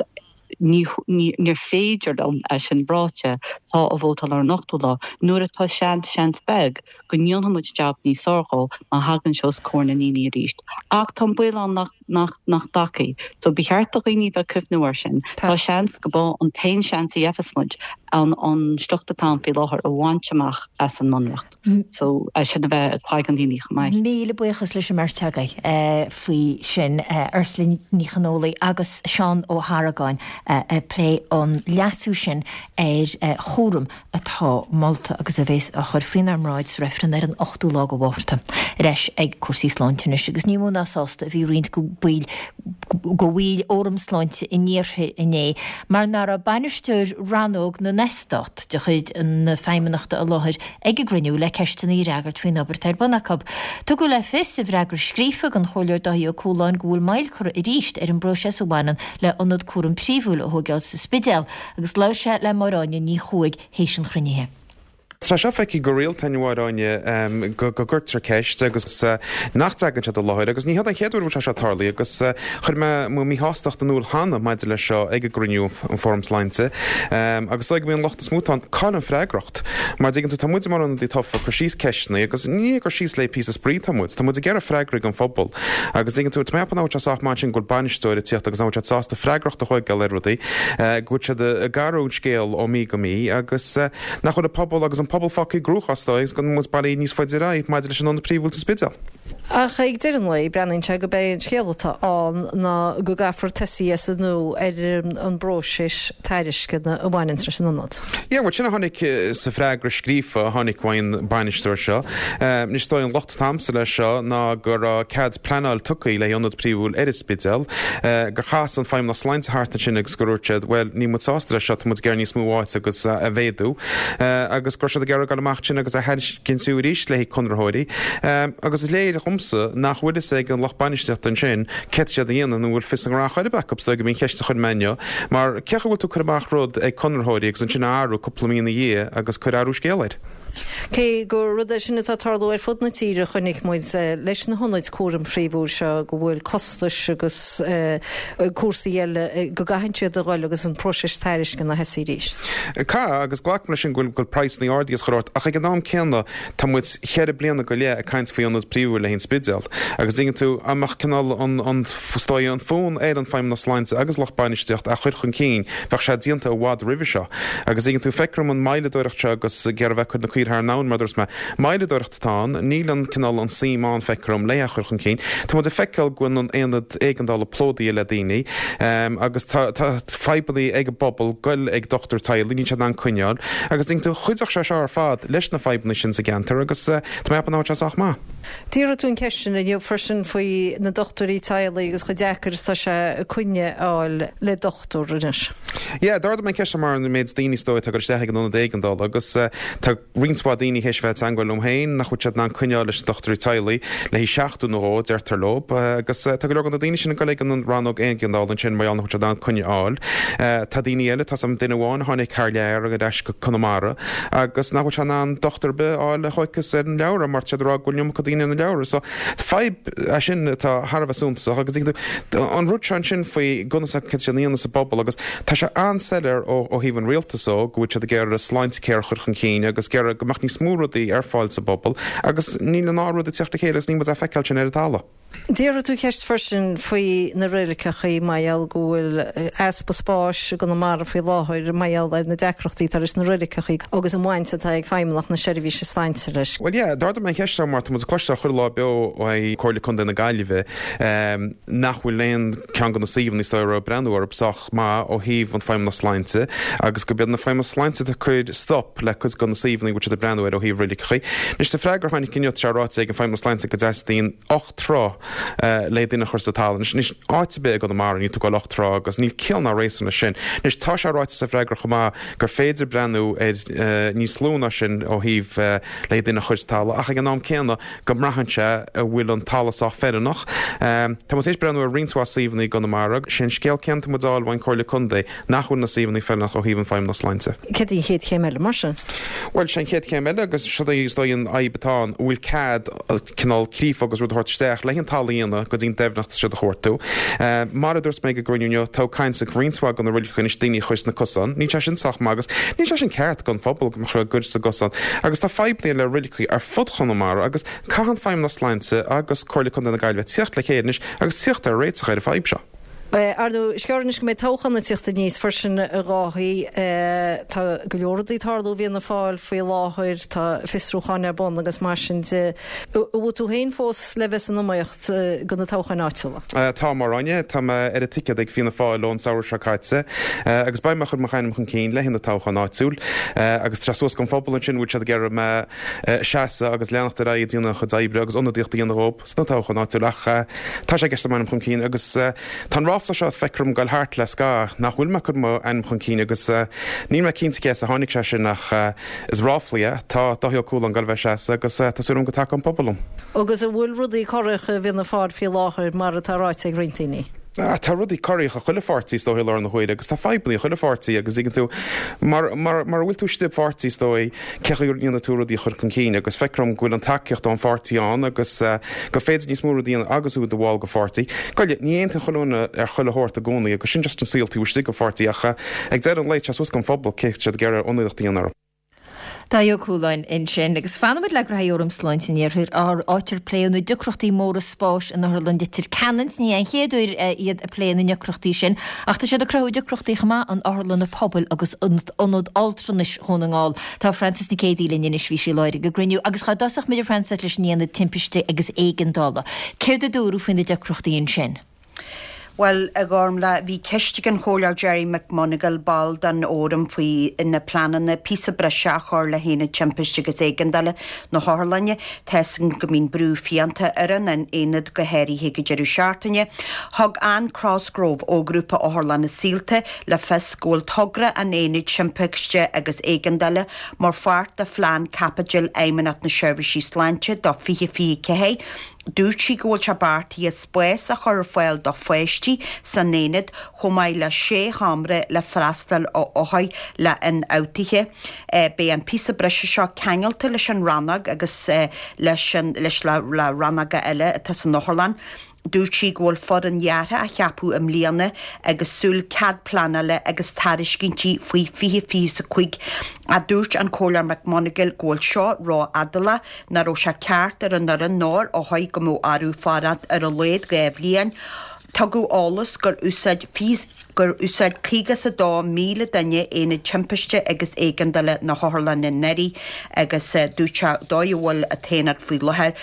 ní, níor féidir liom, é sin ráite, tá a vótáil ar an ochtú lá, nuair atá seans, seans beag, go ndéanfaidh muid jab níos fearr dhó má thagann sé os comhair na ndaoine arís. Ach tá an baol ann nach, nach, nach dtagfaidh. So ba cheart do dhaoine bheith ag cuimhniú air sin. Tá seans go b'é an t-aon seans a gheibheas muid an, an sliocht atá ann faoi láthair a bhaint amach as an mBunreacht. So é sin a bheith ag cloigeann daoine chomh maith. Míle buíochas leis an mbeirt agaibh faoi sin, Ursula Ní Chonfhaola agus Seán Ó hArgáin ag plé an leasú sin ar chúram atá molta agus a bheas á chur faoinár mbráid sa reifreann ar an 8ú lá de Mhárta. Ar ais ag cúrsaí sláinte anois agus ní mó ná sásta a bhí roinnt de bhaill bhaill Fhóram Sláinte an Iarthair inné mar nach raibh bainisteoir rannóg na n-eastát de chuid na Feidhmeannachta i láthair ag an gcruinniú le ceisteanna a fhreagairt faoin obair atá ar bun acu. Tugadh le fios i bhfreagra scríofa don Chomhairleoir Dáithí Ó Cualáin go bhfuil moill curtha arís ar an bpróiseas a bhaineann le hionad cúraim príomhúil a thóigeáil sa Spidéal agus labhair sé le Máire Áine Ní Chuaig théis an chruinnithe. Tá seo feicthe go rialta a Mháire Áine go gcuirtear ceist agus nach dtagann siad i láthair agus ní hiod an chéad uair a bhfuil sé seo tarlaithe agus chuir mé mo mhíshástacht in iúl cheana maidir leis seo ag an gcruinniú an Fóram Sláinte agus is dóigh go mbíonn an locht is mó atá ann cá bhfuil an freagracht mar dtuigeann tú tá muid mar ionadaí tofa ag cur síos ceisteanna agus ní ag cur síos le píosa spraoi atá muid tá muid ag iarraidh freagraí don phobal agus dtuigeann tú tá mé ag ceapadh nach bhfuil sé sách maith ansin go bhfuil bainisteoir ag tíocht agus nach bhfuil siad sásta freagracht a thóigeáil ar rudaí, go bhfuil siad ag athrú an scéal ó mí go mí agus nach bhfuil an pobal agus an pobal fágtha i gcruachás dóigh agus go bhfuil muid bailithe níos faide ar aghaidh maidir leis an ionad príomhúil sa Spidéal. Ach ag deireadh an lae, breathnaíonn sé gurb é an scéal atá ann ná go gcaithfear tosaí as an nua ar an bpróiseas tairisceana a bhaineanns leis an ionad. Yeah, bhuel sin a tháinig sa freagra scríofa a tháinig uaidh an bainisteoir seo. Anois is dóigh an locht atá a'msa leis seo ná go raibh cead pleanáil tugtha le hionad príomhúil ar an Spidéal, gur chas an Feidhmeannas Sláinte thart ansin agus gur dhúirt siad, bhuel níl muid sásta leis seo, tá muid ag iarraidh níos mó áite agus a mhéadú. Agus go raibh siad ag iarraidh dul amach ansin agus a thairiscint arís le haghaidh conraitheoirí. Agus is léir dhomsa nach bhfuil fhios ag an lucht bainistíochta ansin céard tá siad a dhéanamh nó an bhfuil fios a ngnó chor ar bith acu, is dóigh gurb í an cheist a chuir mé inniu. Mar cén chaoi a bhfuil tú ag cur amach rud ag conraitheoirí agus ansin a athrú cúpla mí ina dhiaidh agus cur athrú scéal air? Cé gur rud é sin atá ag tarlú ar fud na tíre, chonaic muid leis na hionaid cúraim phríomhúil seo go bhfuil costais agus cúrsaí eile go gcaitheann siad a dhul agus an próiseas tairisceana a thosaí arís. Caithfidh, agus glacaim leis sin go bhfuil praghsanna ardaithe is chuile shórt, ach ag an am céanna Tá muid cheithre bliana go leith ag caint faoi ionad príomhúil le haghaidh an Spidéal agus dtuigeann tú, dá mbeadh cineál an, an, is dóigh, an fonn ar an Feidhmeannas Sláinte agus lucht bainistíocht a chur chun cinn, bheadh sé déanta i bhfad roimhe seo. Agus dtuigeann tú, feictear dom an moilleadóireacht seo agus ag iarraidh bheith ag cur na caoire thar an abhainn mar a dúirt mé. Moilleadóireacht atá ann, níl an cineál an suim ann, feictear dom, le é a chur chun cinn. Tá muid ag feiceáil go bhfuil an aonad éigeandála plódaithe le daoine agus tá, tá fadhbanna ag an bpobal goil ag dochtúir teaghlaigh, níl siad in ann coinneáil. Agus dtuigeann tú, chuideodh sé seo ar fad leis na fadhbanna sin sa gceantar agus tá mé ag ceapadh nach bhfuil sé sách maith. D'fhiafraigh tú an cheist sin inniu freisin faoi na dochtúirí teaghlaigh agus chomh deacair is atá sé coinne a fháil le dochtúir anois. Yeah, d'ardaigh mé an cheist seo mar an méid daoine is dóigh atá ag dul isteach ag an ionad éigeandála agus tá roinnt mhaith daoine théis bheith ag teangmháil liom féin nach bhfuil siad in ann coinneáil leis na dochtúirí teaghlaigh le haghaidh seachtain nó dhó, deirtear leo, agus tá go leor de na daoine sin ag dul ag an rannóg éigeandála ansin mar gheall nach bhfuil siad in ann coinne a fháil. Tá daoine eile, tá 's a'm duine amháin a tháinig thar lear ar ais go Conamara agus nach bhfuil sé in ann dochtúir ar bith a fháil a thóigfeas ar an leabhar mar tá siad ag rá go bhfuil an iomarca daoine ar na leabhra. So fadhb é sin atá thar a bheith suntasach agus an rud seo ansin faoi conas céard tá siad a dhéanamh sa bpobal agus tá sé an-soiléir ó thaobh an rialtais ó go bhfuil siad ag iarraidh Sláintecare a chur chun cinn agus ag iarraidh go mbeadh níos mó rudaí ar fáil sa bpobal agus níl an dá rud ag teacht le chéile agus níl muid á feiceáil sin ar an talamh. D'fhiafraigh tú ceist freisin faoi na reiligeachaí mar gheall go bhfuil easpa spáis i gConamara faoi láthair mar gheall ar na deacrachtaí atá leis na reiligeachaí agus an bhaint atá ag Feidhmeannacht na Seirbhíse Sláinte leis. Bhuel yeah, d'ardaigh mé an cheist seo mar tá muid ag cloisteáil chuile lá beo ó Comhairle Contae na Gaillimhe nach bhfuil aon ceann de na suíomhanna is dóigh a raibh breathnú orthu sách maith ó thaobh an Feidhmeannas Sláinte agus gurb iad na Feidhmeannas Sláinte atá ag cur stop le cuid de na suíomhanna a bhfuil siad ag breathnú air ó thaobh reiligeachaí. Anois sa freagra a tháinig inniu tá sé ráite ag an Feidhmeannas Sláinte go dteastaíonn 8 troigh le duine a chur sa talamh. Anois anois áit ar bith i gConamara níl tú ag goil 8 troigh agus níl ciall ná réasún leis sin. Anois tá sé ráite sa bhfreagra chomh maith gur féidir breathnú ar níos lú ná sin ó thaobh le duine a chur sa talamh ach ag an am céanna go mbraitheann sé an bhfuil an talamh sách feiliúnach. Tá muid tar éis breathnú ar roinnt mhaith suíomhanna i gConamara. Sé an scéal céanna atá muid a fháil ón Comhairle Contae, nach bhfuil na suíomhanna feiliúnach ó thaobh an Feidhmeannas Sláinte. Céard í an chéad chéim eile, mar sin? Bhuel, sé an chéad chéim eile, agus seo í is dóigh an fhadhb atá ann, an bhfuil cead cineál creafadh agus rud a thabhairt isteach le an talamh a dhéanamh go dtí an doimhneacht atá siad a chuartú. Mar a dúirt mé ag an gcruinniú inniu, tá caint ag roinnt mhaith de na roiligeacha anois daoine a chur sna cosáin. Níl sé sin sách maith agus níl sé sin ceart don phobal go mbeadh a gcuir sa gcosán. Agus tá fadhbanna le roiligeacha ar fud Chonamara agus caithfidh an Feidhmeannas Sláinte agus Comhairle Contae na Gaillimhe tíocht le chéile anois agus tíocht ar réiteach ar an fadhb seo. Ar ndóigh, is gearr anois go mbeidh toghchán ag tíocht aníos freisin, a Dháithí. Tá go leor rudaí ag tarlú i bhFianna Fáil faoi láthair, tá fiosrúcháin ar bun agus mar sin de. An bhfuil tú féin fós le bheith san iomaíocht do na toghcháin áitiúla? Tá, a Mháire Áine. Tá mé ar an ticéad ag Fianna Fáil ón samhradh seo caite agus beidh mé ag cur mo ainm chun cinn le haghaidh na toghcháin áitiúil agus tá sé suas don phobal ansin an bhfuil siad ag iarraidh mé a seasamh agus leanacht ar aghaidh ag déanamh an chuid oibre agus ionadaíocht a dhéanamh dhóibh sna toghcháin áitiúil ach tá sé i gceist m'ainm chun cinn agus tá an ráfla seo feictear dom ag goil thart le scaitheamh nach bhfuil mé ag cur m'ainm chun cinn agus níl mé cinnte cé as a tháinig sé sin ach is ráfla é. Tá Dáithí Ó Cualáin ag goil a bheith ag seasamh agus tá súil agam go dtacóidh an pobal liom. Agus an bhfuil rudaí corraitheach i bhFianna Fáil faoi láthair mar atá ráite ag roinnt daoine? Tá rudaí corraitheach i chuile pháirtí is dóigh i láthair na huaire agus tá fadhbanna i chuile pháirtí agus tuigeann tú mar mar mar a bhfuil tú istigh i bpáirtí is dóigh cé chaoi a ndéanfaidh tú rudaí a chur chun cinn agus feictear dom go bhfuil an tacaíocht ón pháirtí ann agus gur féidir níos mó rudaí a dhéanamh agus tú i do bhall de pháirtí. Goile, ní aontaíonn chuile dhuine ar chuile shórt i gcónaí agus sin just an saol taobh istigh de pháirtí ach ag deireadh an lae tá sé suas don phobal cé siad ag iarraidh ionadaíocht a dhéanamh orthu. Dáithí Ó Cualáin ansin. Agus fanfaimid le gnóthaí Fhóram Sláinte an Iarthair, áit ar pléadh na deacrachtaí móra spáis in Otharlann Leitir Ceanainn. Ní an chéad uair iad ag plé na ndeacrachtaí sin, ach tá siad ag cruthú deacrachtaí chomh maith in otharlanna pobail agus in Ionad Altranais Dhún na nGall. Tá Frances Nic Géadaigh linn anois, bhí sí i láthair ag an gcruinniú. Agus dhá dtosódh muid, a Frances, leis an Aonad Timpiste agus Éigeandála. Céard a dúradh faoi na deacrachtaí ansin? Bhuel, a Ghormfhlaith, bhí ceist ag an Chomhairleoir Gerry McMonagall, ball den Fhóram, faoi na pleananna píosa breise a chur le hAonad Timpiste agus Éigeandála na hOtharlainne. Tá 'fhios againn go mbíonn brú fiánta ar an aonad, go háirithe ag an deireadh seachtaine. Thug Anne Crosgrove ó Ghrúpa Otharlanna Saolta le fios go bhfuil togra an Aonaid Timpiste agus Éigeandála mar pháirt de phlean caipitil Fheidhmeannacht na Seirbhíse Sláinte do 2024. Dúirt sí go bhfuil sé beartaithe spás a chur ar fáil do pháistí san aonad chomh maith le sé sheomra le freastal ar othair le ionfhabhtuithe. Beidh an píosa breise seo ceangailte leis an rannóg agus leis an leis le rannóga eile atá san otharlann. Dúirt sí go bhfuil foireann dheartha á cheapadh i mbliana agus súil cead pleanála agus tairiscintí faoi 2025 ach dúirt an Comhairleoir McMonagall go bhfuil seo ró-fhadálach, nach raibh sé ceart ar an fhoireann ná ar othair go mbeadh orthu fanacht ar a laghad 2 bhliain. Tugadh eolas gur úsáid gur úsáid 52,000 duine Aonad Timpiste agus Éigeandála na hOtharlainne anuraidh agus dúirt sé dóigh a bhfuil an t-aonad faoi láthair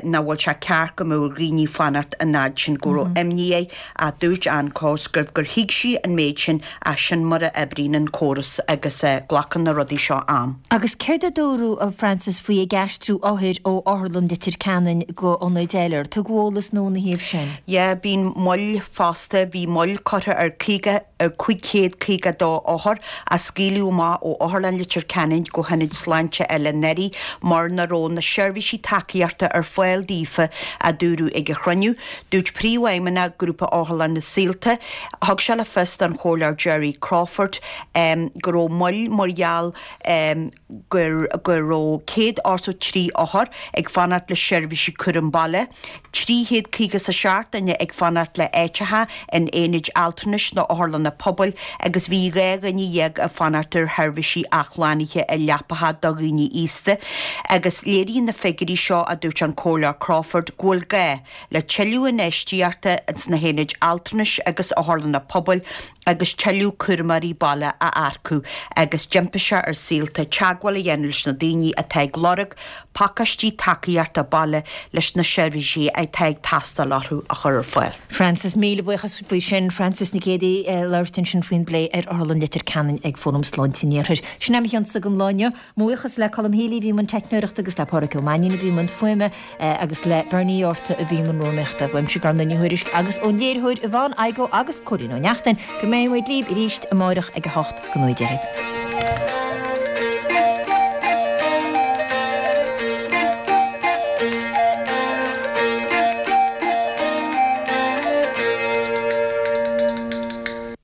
nach bhfuil sé ceart go mbeadh ar dhaoine fanacht an fhad sin, go raibh imní air ach dúirt Anne Cosgrove gur thuig sí an méid sin ach sin mar a oibríonn an córas agus glacann na rudaí seo am. Agus céard a dúradh, a Frances, faoi ag aistriú othair ó Otharlann Leitir Ceanainn go ionaid eile? Ar tugadh eolas nua ina thaobh sin? Yeah, bíonn moill fosta, bhí moill curtha ar 50, ar 552 othar a scaoileadh amach ó Otharlann Leitir Ceanainn go hionaid sláinte eile anuraidh mar nach raibh na seirbhísí tacaíochta ar fáil daofa, a dúradh ag an chruinniú. Dúirt Príomhfheidhmeannach Grúpa Otharlanna Saolta, thug sé le fios don Chomhairleoir Gerry Crawford go raibh moill mar gheall gur go raibh 183 othar ag fanacht le seirbhísí cúram baile, 357 duine ag fanacht le áiteacha in aonaid altranais nó otharlanna pobail agus bhí 12 dhuine ag fanacht ar sheirbhísí athshlánaithe i leapacha do dhaoine aosta. Agus léiríonn na figiúirí seo, a dúirt an Comhairleoir Crawford, go bhfuil gá le tuilleadh infheistíochta sna haonaid altranais agus otharlanna pobail agus tuilleadh cúramóirí baile a earcú agus d'impigh sé ar Saolta teagmháil a dhéanamh leis na daoine atá ag lorg pacáistí tacaíochta baile leis na seirbhísí atá ag teastáil orthu a chur ar fáil. Frances, Míle buíochas faoi sin. Frances Nic Géadaigh ag labhairt ansin faoin bplé ar Otharlann Leitir Ceanainn ag Fóram Sláinte an Iarthair. Sin é mo chionsa don lá inniu. Mo bhuíochas le Colm Healy a bhí i mbun teicneoireachta agus le Pádraic Ó Mainnín a bhí i mbun fuaime agus le Bernie Orta a bhí i mbun rúnaíochta. Uaimse Gormfhlaith Ní Thuairisg agus ón léiritheoir Yvonne Igoe agus Cóilín Ó Neachtain go mbeidh muid libh arís amárach ag 8 go 9.